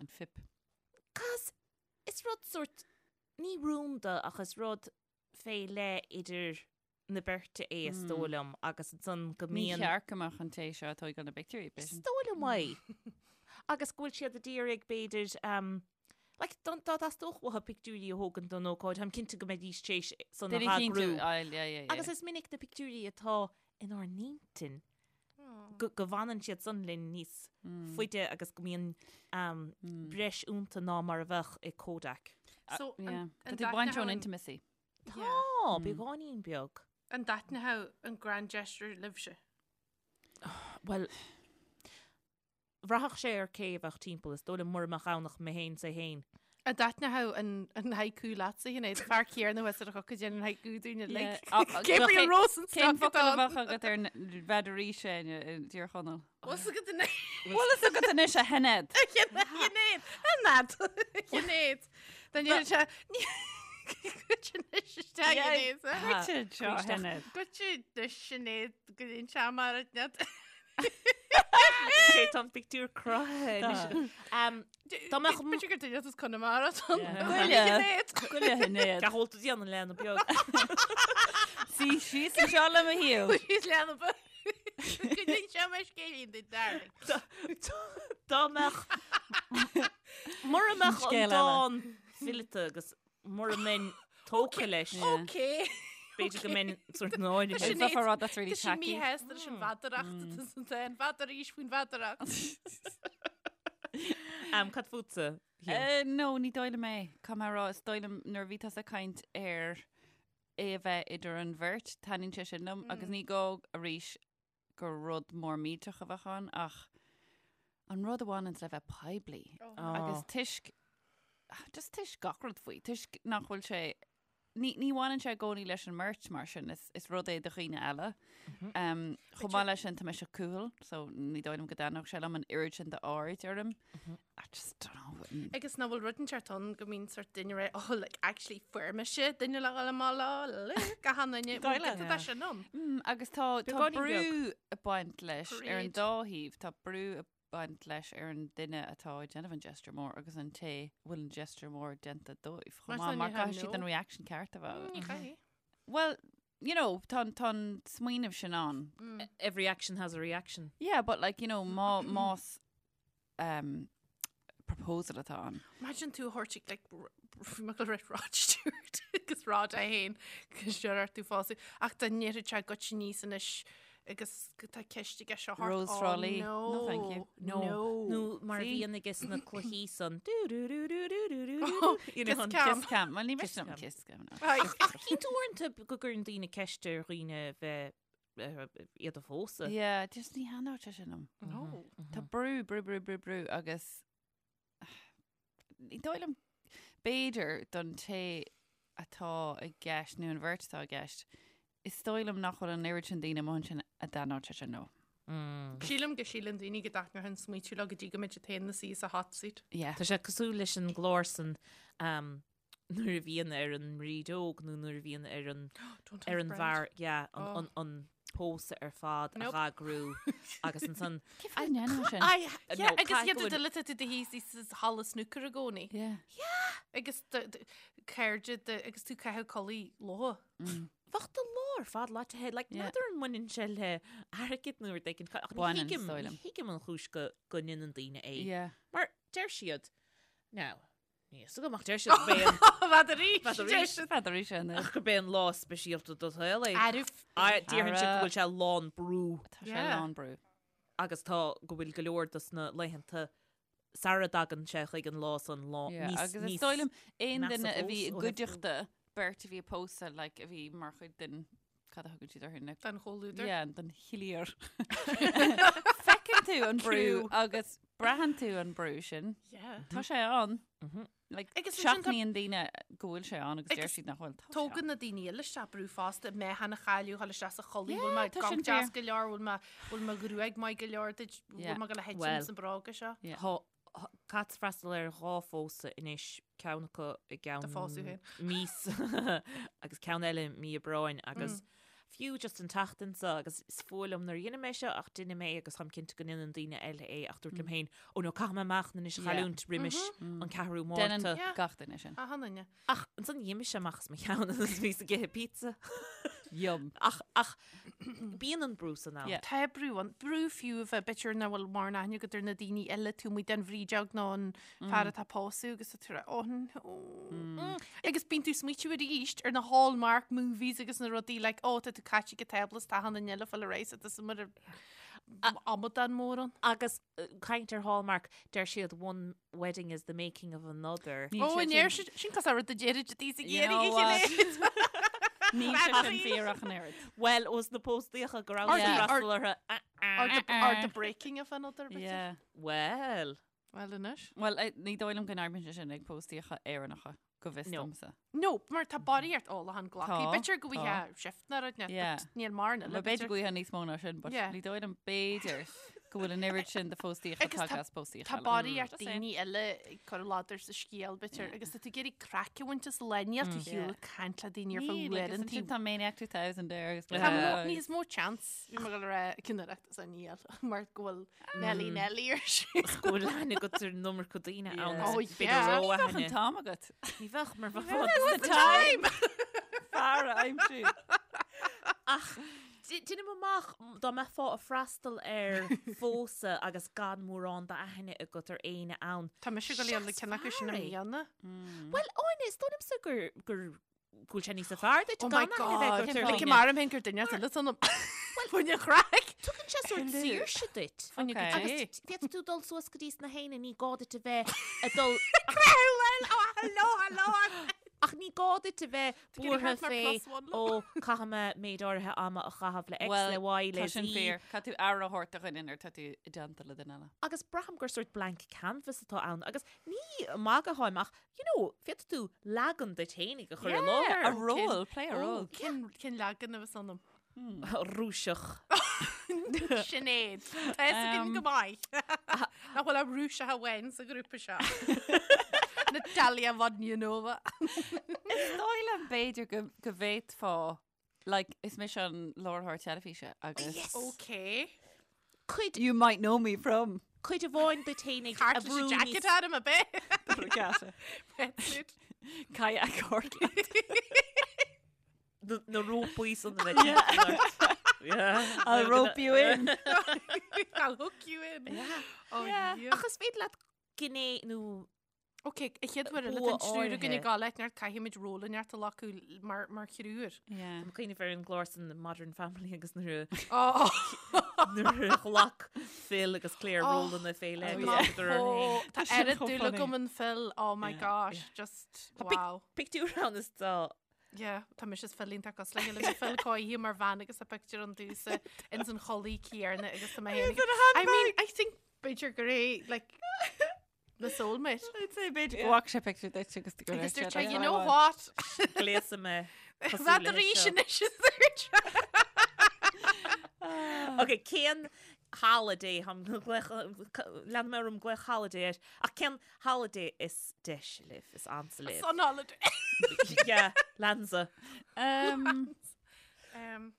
An fuip. Cos is rud sort ní rúnda ach is rud fé leith idir na beirte é is dóigh liom agus ansan go Ní mbíonn. cheart go mbeadh an té seo ag tógáil na bpictiúirí, Is b'fhéidir. dóigh liom é. Agus go bhfuil siad ag iarraidh b'fhéidir um, like, dá dá dteastódh uathu pictiúirí a thógaint don ócáid, táim cinnte go mbeidís tar éis san a Duine cinnte, eagrú. aye, yeah, yeah, yeah. Agus is minic na pictiúirí atá inár n-intinn go go bhfanann siad san linn níos faide agus go mbíonn um, breis iontu ná mar a bheadh i Kodak. So, Yeah. an- Tá an tú ag baint ón dtaitneodh an- intimacy. Tá, beagáinín beag. An dtaitneodh an grand gesture libhse? Bhuel, Bhraithfeadh sé ar cé a bheadh timpeall, is dóigh liom mura mbeadh ann ach mé féin 's é féin. An dtaitneodh an haiku leatsa, Sinéad? Fear céanna thuas ar a choca déanann haiku dúinn uilig. Gabriel Rosenstock Cén focal a bheadh agat ar an bhfeadar sin i dTír Chonaill? Bhfuil fhios agat anois? Bhfuil fhios agat anois a Shinéad? A Shinéad! A Shinéad! A Shinéad! Dá ndéanann sé... Goitse anois isteach, Sinéad. Goitse anseo, a Shinéad. Goitse anois, Sinéad, go dtéann sé mar a Cé tá an pictiúr cruthaithe anois. Dá mbeadh... B'fhéidir gur duine as Conamara atá ann. Goile. Goile Shinéad. Cad atá tú déanamh leanbh beag. Suigh síos anseo le mo thaobh. Síos leanbh beag. Go n-inseoidh mé scéilín duit, darling. Dá mbeadh... Mura mbeadh an Scéal eile. dán fileata agus mura mbeinn tógtha leis. Ok. B'fhéidir go mbeinn sort náirithe. Sin Is a rud that's really Tá sí tacky. míshásta leis an mheadaracht atá san dán. N'fheadar arís faoin mheadaracht. Um, cad fútsa? Hugh? Eh, no, ní dóigh liom é. Caithfidh mé a rá, is dóigh liom nuair a bhí tusa ag caint ar é a bheith idir an bheirt, taitníonn sé sin liom agus ní gá arís gur rud mór millteach a bheadh ann ach an rud a bhaineanns le bheith poiblí agus toisc, just toisc gach rud faoi, toisc nach bhfuil sé, ní, ní bhaineann sé i gcónaí leis an mbeirt mar sin, is, is rud é do dhaoine eile. Um, chomh maith leis sin tá mise cúthail, so ní dóigh liom go dtaitneodh sé liom an oiread sin d'aird orm. I just don't know. Agus nach bhfuil rud inteacht ann go mbíonn sort duine ré, oh, like, actually fuair mise duine le dhul amach leo, look, achan duine, bhfuil giota de sin ann. Mm, agus tá, tá Beagáinín brú beag. ag baint leis ar an Parade. dá thaobh, tá brú ag baint leis ar an duine atá ag déanamh an gesture mór agus an té a bhfuil an gesture mór déanta dóibh. Chomh Mar maith, san mar ní hea, caithfidh siad no. an reaction ceart a bheith. Ní chaithfidh. Well, you know, tá, tá an smaoineamh sin ann. Every action has a reaction. Yeah, but like, you know, má, más um, proposal atá ann. Imagine tú a thabhairt ag like, bhí mé ag rá Rod Stewart agus Rod é féin agus deir ort tú pósadh ach dá ndéarfadh sé goitse aníos anois agus go tá ceist aige seo thart Rose oh, Thra Lí. No, No, thank you. No. No. Nó mar a See? bhíonn aige sna cluichí san. Du, du, du, du, du, du, du, du. You know, Kiss an cam. Kiss cam. Well, ní Kiss miste liom cam. kiss cam. no. Ai, Ach cíonn tú uaireanta go gcuireann daoine ceist ar dhaoine bheith iad a phósadh. Yeah, just ní thaitneodh sé sin liom. No. Tá brú, brú, brú, brú, brú agus ní dóigh liom b'fhéidir don té atá i gceist nó an bheirt atá i gceist, is dóigh liom nach bhfuil an oiread sin daoine amuigh ansin a dtaitneodh sé sin leo. Sílim go síleann daoine go dtaitneodh an smaoitiú leo go dtí go mbeidh siad féin ina suí sa hot seat. Yeah. Tá sé cosúil leis an gclár san um, nuair a bhíonn ar an mbrídeog nó nuair a bhíonn ar an Don't ar have an bread. bhfear yeah, an, Oh. an, an pósadh ar fad Nope. a dh'eagrú agus ansan Cé fáth a ndéanann sin? I, Yeah, no, agus caithfidh iad go bhfuil- duile tú do thíos sa halla snúcair i gcónaí. Yeah. Agus cairde de agus tú caitheamh culaith leo. Bheadh do lá ar fad leáite like, Yeah. n'fheadar an mbaineann sé le airgead nó rud éigin ach ní Baineann, thuigim is dóigh liom. ní thuigim an chúis go go ndéanann daoine é. Yeah. Mar deir siad now Níl a fhios agam ach deir siad gurb é an N'fheadar arís. N'fheadar arís. N'fheadar arís sin. ach gurb é an lá speisialta do shaol é. Arbh. Déarfainn siad go Ara. bhfuil sé lán brú Tá sé Yeah. lán brú. agus tá go bhfuil go leor dos na laethanta sara dtagann sé chuig an lá san lá Yeah, níos agus is níos dóigh liom aon measa duine a bhí i fós ó thaobh brú. gcuideachta beirt a bhí ag pósadh like, a bhí mar chuid den cad a thugann siad orthu na Den chomhluadar. Yeah, den chliar. Feiceann tú an brú Crew. agus braitheann tú an brú sin. Yeah. Tá sé ann. Like, Agus ansin tá- seachnaíonn daoine go bhfuil sé ann agus deir Agus siad nach bhfuil. Tá sé Tógann ann. na daoine eile isteach brú fosta, mé cheana chailleadh, thall isteach sa chulaith, Yeah, bhfuil mé tá sin gach deas fíor. go leor, bhfuil mé bhfuil mo ghruaig maith go leor duit, Yeah. bhfuil mé go le Well. hitchim san bróga seo. Yeah. Tá Caithfead freastal ar dhá phósadh anois, ceann acu i gceann Do phósadh féin. míosa agus ceann eile mí Aibreáin agus fiú just an tseachtain seo agus is fuath liom nuair a dheinim é seo ach deinim é agus táim cinnte go ndéanann daoine eile é ach dúirt liom féin, ó no caithfidh mé meáchan anois a chailliúint roimis an ceathrú Déanann Márta. Yeah. gach duine sin. Achan duine. Ach ansan d'imigh sé amach as mo cheann agus bhíos ag ithe pizza. Yum. Ach, ach bíonn an brú san ann. Yeah. Tá brú ann, brú fiú a bheith b'fhéidir nach bhfuil mórán aithne agat ar na daoine eile taobh amuigh den bhrídeog nó an fear atá ag pósadh agus tá tú ag rá, oh no. Agus bíonn tú ag smaoitiú arís ar na Hallmark movies agus na rudaí like, oh tá tú caite ag an tábla is tá achan duine eile ag fáil ar aghaidh so tá mar amadán mór ann. Agus caint ar Hallmark, deir siad one wedding is the making of another. Níl Ó, sé an deir sin. siad, sin cosúil le rud a deirid daoine ag You iarraidh know a what? chinneadh. Níl sé sin fíor ach an oiread. Well, os na póstaíocha go raibh Or sí the- freastal orthu. Or the, or the breaking of another bit. Yeah. Well, Well, anois. Well, eh, ní dóigh liom go n-oibríonn sé sin ag póstaíocha Éireannacha, go bhfios No. domsa. No, mar tá barraíocht ólachán glactha. Tá, B'fhéidir go tá. bhfuil shift na rud net, Yeah. but níl mar na Well, b'fhéidir go bhfuil níos mó ná sin, but Yeah. ní dóigh liom b'fhéidir go bhfuil an oiread sin de phóstaíocha Agus tá- tagtha as póstaíocha Tá eile. barraíocht Just saying. daoine eile ag cur ladar sa scéal b'fhéidir agus tá tú ag iarraidh craic a bhaint as lá níl tú Yeah. shiúl ag caint le daoine ar feadh Níl, agus uaireanta. ansin tá Maniac 2000 air agus Tá blah. mó- níos mó chance bhí mé ag dul a rá cinnireacht is níl mar go bhfuil Nelly Nelly ar siúl. Go bhfuil aithne agat ar an iomarca daoine ann. Yeah. Oh, B'fhéidir yeah. ró Ní bheadh an aithne. t-am agat. Ní bheadh mar bheadh the time. Fear a aimsiú. Ach déanaim amach dá mbeifeá ag freastal ar phósadh agus gan mórán d'aithne agat ar éinne ann. Tá mise ag dul le ceann acu sin i Seas fear é. mbliana. Well, Áine, is dóigh liomsa gur gur go bhfuil sé níos fearr duit Oh my gan aithne a bheith god. agat ar Like dhaoine. mar féin gur duine eile san Fuaine chraic. Tugann sé sórt saoirse duit. Fuaine Okay. Agus féadfaidh tú dul suas go dtí sna héinne, ní gá duit a bheith ag dul Well, oh, hello, hello. Ach ní gá duit a bheith buartha mar fé plus one ó caithfidh mé méid áirithe ama a chaitheamh le X, Well, le Y, le Tá sin Z. fíor. Caithfidh tú aire a thabhairt do dhuine nuair tá tú i dteannta le duine eile. Agus braithim gur sórt blank canvas atá ann agus ní magadh atáim ach, you know, féadfaidh tú leagan duit fhéinig a chur i láthair. A role, play a role. Cén cén leagan a bheas ionam? Rúiseach. Sinéad. Tá fhios againn go maith. Nach bhfuil ach Rúiseach amháin sa ghrúpa seo. Natalia Vodyanova. Is dóigh liom b'fhéidir go go bhféadfá like, is mise an láithreoir teilifíse agus Yes. Okay. Cuid, you might know me from cuid amháin duit fhéinig a Cairt leis bhrú an jacket níos- orm a bit. Regatta. Wetsuit. Kayak Cortland. Na na rópaí san a bheith timpeall ort. Yeah. I'll rope you in. I'll hook you in. Yeah. Oh, Yeah. yeah. Ach is féidir leat gné nó Ok, a chéad uair eile Bua tá an triúr againn áirithe. ag gabháil leat neart caithfimid ról inteacht a ghlacadh mar mar thriúr. Yeah. Tá cuimhne ar an gclár san Modern Family agus nuair a Oh. nuair a ghlac Phil agus Claire Oh, rólanna fé leith oh, agus yeah. thugadar orthu féin. Tá Tá sin oiread chomh dúil funny. agam in Phil, oh my Yeah. gosh, just Tá pic- wow. Pictiúr ann is tá Yeah, tá mise is Phil iontach cosúil le chéile. Bhí Phil cóirithe mar bhean agus tá pictiúr ann domhsa ins an chulaith chéanna agus tá mé féin. I mean, I think b'fhéidir gur é like na soulmate. I'd say b'fhéidir go bhfaca sé pictiúr duit agus go Agus raibh sé dúirt sé, like, you "Oh, know I what? gléasadh mé cosúil Bhead leis arís seo. anois is dúirt sé. Ok, cén holiday lean mé orm glaoch holiday air ach cén holiday is deise libh, is ansa libh? Sun holiday. Yeah, leansa. Um, Um,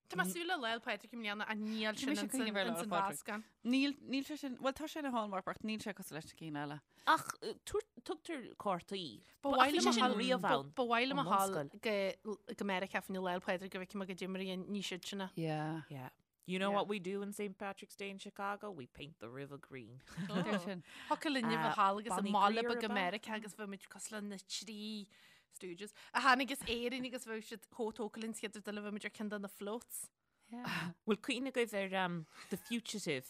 Tá mé ag súil le Lá 'le Pádraig i mbliana ach níl Tá sin mise ag cuimhneamh ar Lá 'le ins an Pádraig. mheascán. Níl, níl sé sin, well tá sé ina hallmark ach níl sé cosúil leis na cinn eile. Ach tugtar cártaí. Ba Ach mhaith bhí liom sé a sin ghabháil- riamh ba- ann Ba mhaith liom a ón ghabháil mbunscoil. go go Meiriceá fá choinne Lá 'le Pádraig go bhfeicfidh mé goidé mar a dhéanann siad sin. Yeah. Yeah. You know Yeah. what we do in St. Patrick's Day in Chicago? We paint the river green. Deir sin. Thiocfadh linn a bheith thall agus Bonnie i mbaile Greer beag i ab ea? Meiriceá agus bheadh muid cosúil le na trí Stooges. A tháinig as Éirinn agus bheadh siad chomh tógtha linn chéad rud eile bheadh muid ar ceann de na floats. Yeah. Bhfuil cuimhne agaibh ar um, The Fugitive,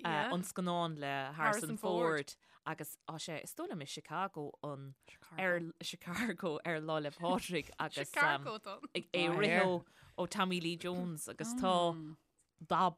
uh, Yeah. an scannán le Harrison Harrison Ford. Ford agus tá sé is dóigh liom i Chicago an ar Chicago ar Lá 'le Pádraig agus um, Chicago don. ag é Ah, rith here. ó ó Tommy Lee Jones agus tá dath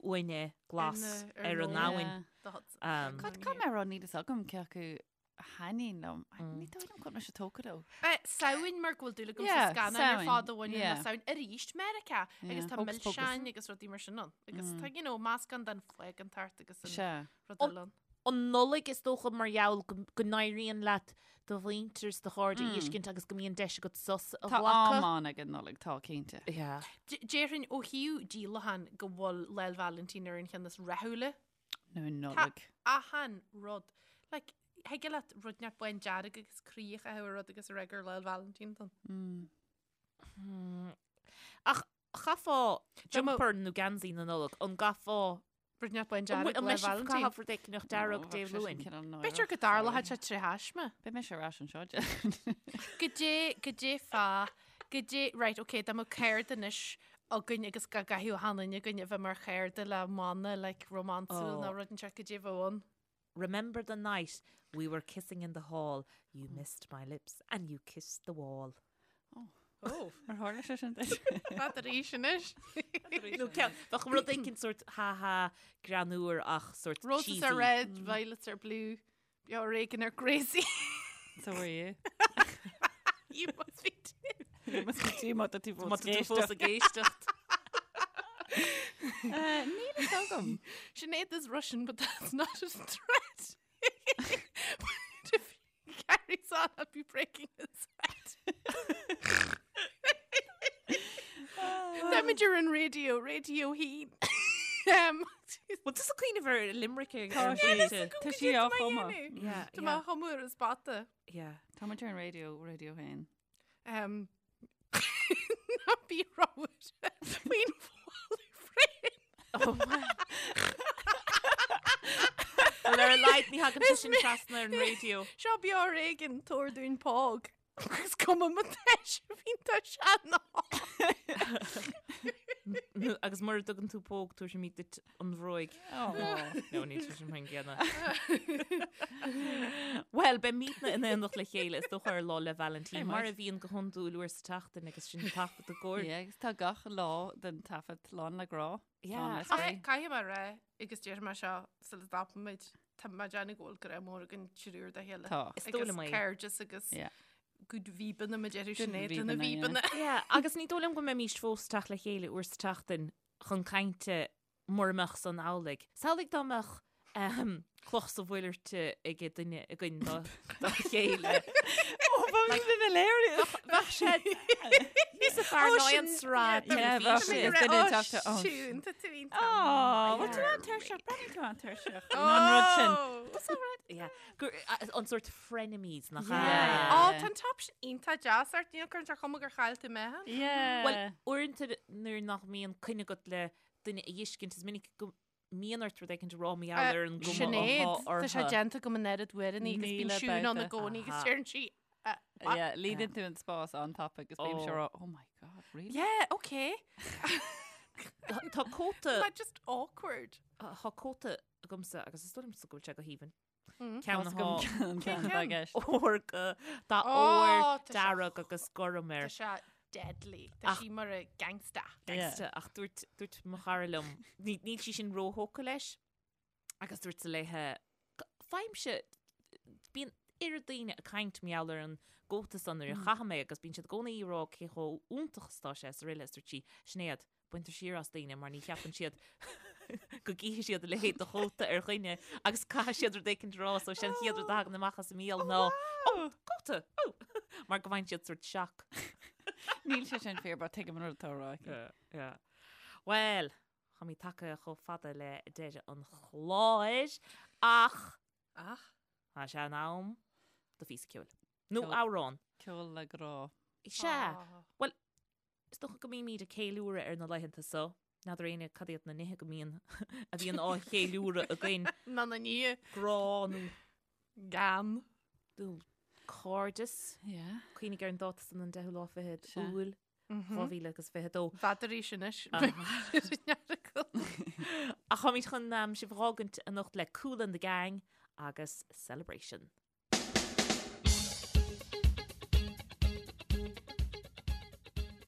uaine glas Ar na- ar ar an an abhainn. The Hudson. Um, God, cá mé rá níl fhios agam cé acu a thaitníonn liom. Ní dóigh liom go bhfuil mise tógtha leo. Samhain mar go bhfuil dúil agam sa Yeah, scannán ar Samhain, fad a bhaineann le yeah. Samhain arís Meiriceá agus Yeah, tá Hocus Pocus. milseáin agus rudaí mar sin ann. Agus tá, you know, meascán den phágántacht agus an Sea. rud An- eile ann. An Nollaig is dócha mar gheall go go n-éiríonn leat do mhuintir is do chairde a fheiscint agus go mbíonn deis agat sos a Tá am ghlacadh. ann ag an Nollaig, tá cinnte. Yeah. D- Déarfainn ó thaobh díolacháin go bhfuil Lá 'le Vailintín ar an cheann is rathúla. Nó an Nollaig. Achan rud. Like, thig leat rud inteacht bándearg agus croí a chaitheamh ar rud agus a rá gur Lá 'le Vailintín atá ann. Ach chaithfeá Dá mba- jumper nó geansaí na Nollag, an gcaithfeá Rud inteacht bán An dearg bhfuil- an Lá 'le mbeidh sibh Vailintín. caitheamh rud éicneach dearg Dé Luain? B'fhéidir go dtarlódh sé tré thaisme. Beidh mise ar ais anseo. Goidé, goidé fá, goidé, right, ok, dá mbeadh cairde anois againn agus go gcaithfeadh achan duine againn a bheith mar chairde le mana, like, rómánsúil Oh. nó rud inteacht goidé a bheadh ann. Remember the night we were kissing in the hall, you missed my lips and you kissed the wall. Oh. Ar tharla sé sin duit? Fad arís anois. Nó ceann, bheadh rud éicint sort ha ha greannmhar ach sort Roses cheesy. are red, violets are blue. Beo ar éigean ar Gracie. So were you. You must be too. You must be too má tá tú Má fós tá tú fós ag éisteacht. Níl a fhios agam. Sinead is Russian, but that's not a threat. But if he carries on, I'll be breaking his head. Táimid ar an raidió, Raidió Haon. Um, Bhfuil tusa ag cuimhneamh ar Limerick ag Tá ar sí. an Tá sí á chumadh. Yeah, Tá mé á chumadh ar an spota. Yeah. Tá muid ar an raidió, Raidió Haon. Um, ná bí rómhar faoin bhfáil frame. Oh my. Well, ar a laghad ní thagann sé sin trasna ar an raidió. Seo beo ar éigean tabhair dúinn póg. Is cuma má tá sé iontach sean. Agus mura dtugann tú póg tabharfaimid duit an bhróig. No, níl sé sin mar an gcéanna. Well, beimidne in éineacht le chéile is dócha ar Lá 'le Vailintín, mar a bhíonn go hiondúil uair sa tseachtain agus sinn ag taifead i gcomhair. Yeah, agus tá gach lá den taifead lán le grá. Yeah. Lán le spraoi. Caithfidh mé a rá, agus déarfaidh mé seo sula dtapaimid, tá mé ag déanamh go bhfuil grá mór againn triúr dá chéile. Tá. Is dóigh Agus liom é. cairdeas agus Yeah. good víbeanna mar a déarfadh Good Sinéad lena víbeanna, víbeanna. Yeah, agus ní dóigh liom go mbeimís fós ag teacht le chéile uair sa tseachtain chun cainte mura mbeadh san amhlaidh. Samhlaigh dá mbeadh ehm, cloch sa mhuileart ag duine againn dá dá chéile. Ó, bheadh sin hilarious. Bheadh sé níos fearr ná an sraith Yeah, bheadh teilifíse. sé. Is duine ag teacht ó. Siún, tá tú iontach. Ó, bhfuil tú an-tuirseach, breathnaíonn tú an-tuirseach. Nó an rud sin. That's all right. Yeah. Gur, an sort frenemies nach ea? Yeah. Ó, tá an top sin iontach deas ort, níl cuireann sé ar chuma gur chaill tú meáchan. Yeah. Well, uaireanta nuair nach mbíonn coinne agat le duine a fheiscint, is minic go mbíonn ort rud éicint a rá mar gheall ar an gcuma Sinéad, atá tá sé orthu. déanta agam an oiread uaireanna agus bíonn 1000 Siún ann i babhta. gcónaí agus Aha. deireann sí, Yeah, líonann tú an spás an-tapa agus bímse Oh. ag rá, oh my god, really? Yeah, okay. Tá tá cóta Not just awkward. tá cóta agamsa agus is dóigh liomsa go bhfuil sé go haoibhinn. Mm. Ceann Tá agam atá ceann Cén atá i ceann? gceist. ór go dath Oh, ór tá sé- dearg agus gorm air. Tá sé deadly. Tá Ach- sí mar a gangsta. Gangsta ach dúirt dúirt mo chara liom ní níl sí sin róthógtha leis agus dúirt sí léithe faighimse bíonn oiread daoine ag caint mar gheall ar an gcóta san nuair a chaithim é agus bíonn siad i gcónaí ag rá cé chomh iontach is atá sé is araile is dúirt sí Sinéad baintear siar as daoine mar ní cheapann siad go gcífidh siad a leithéid de chóta ar dhuine agus caithfidh siad rud éicint a rá so sin an chéad rud a thagann amach as a mbéal ná oh cóta oh mar go bhfaigheann siad sort shock. Níl sé sin fíor, but tuigim an rud atá á rá aici. Yeah. Well, táimid tagtha chomh fada le deireadh an chláir ach Ach. tá sé in am do phíosa ceoil. Nó Ceol. amhrán. Ceol le grá. Sea. Well, Is dócha go mbímid ag ceiliúradh ar na laethanta so. N'fheadar éinne cad iad na nithe go mbíonn a bhíonn á cheiliúradh againn. Ná na nithe. Grá nó Gan. nó cairdeas. Yeah. Cuimhnigh ar an dáta san an 10ú lá fichead Sea. Iúil 2022. N'fheadar arís anois. Ach táimid chun sibh a fhágaint anocht le Kool and the Gang agus Celebration.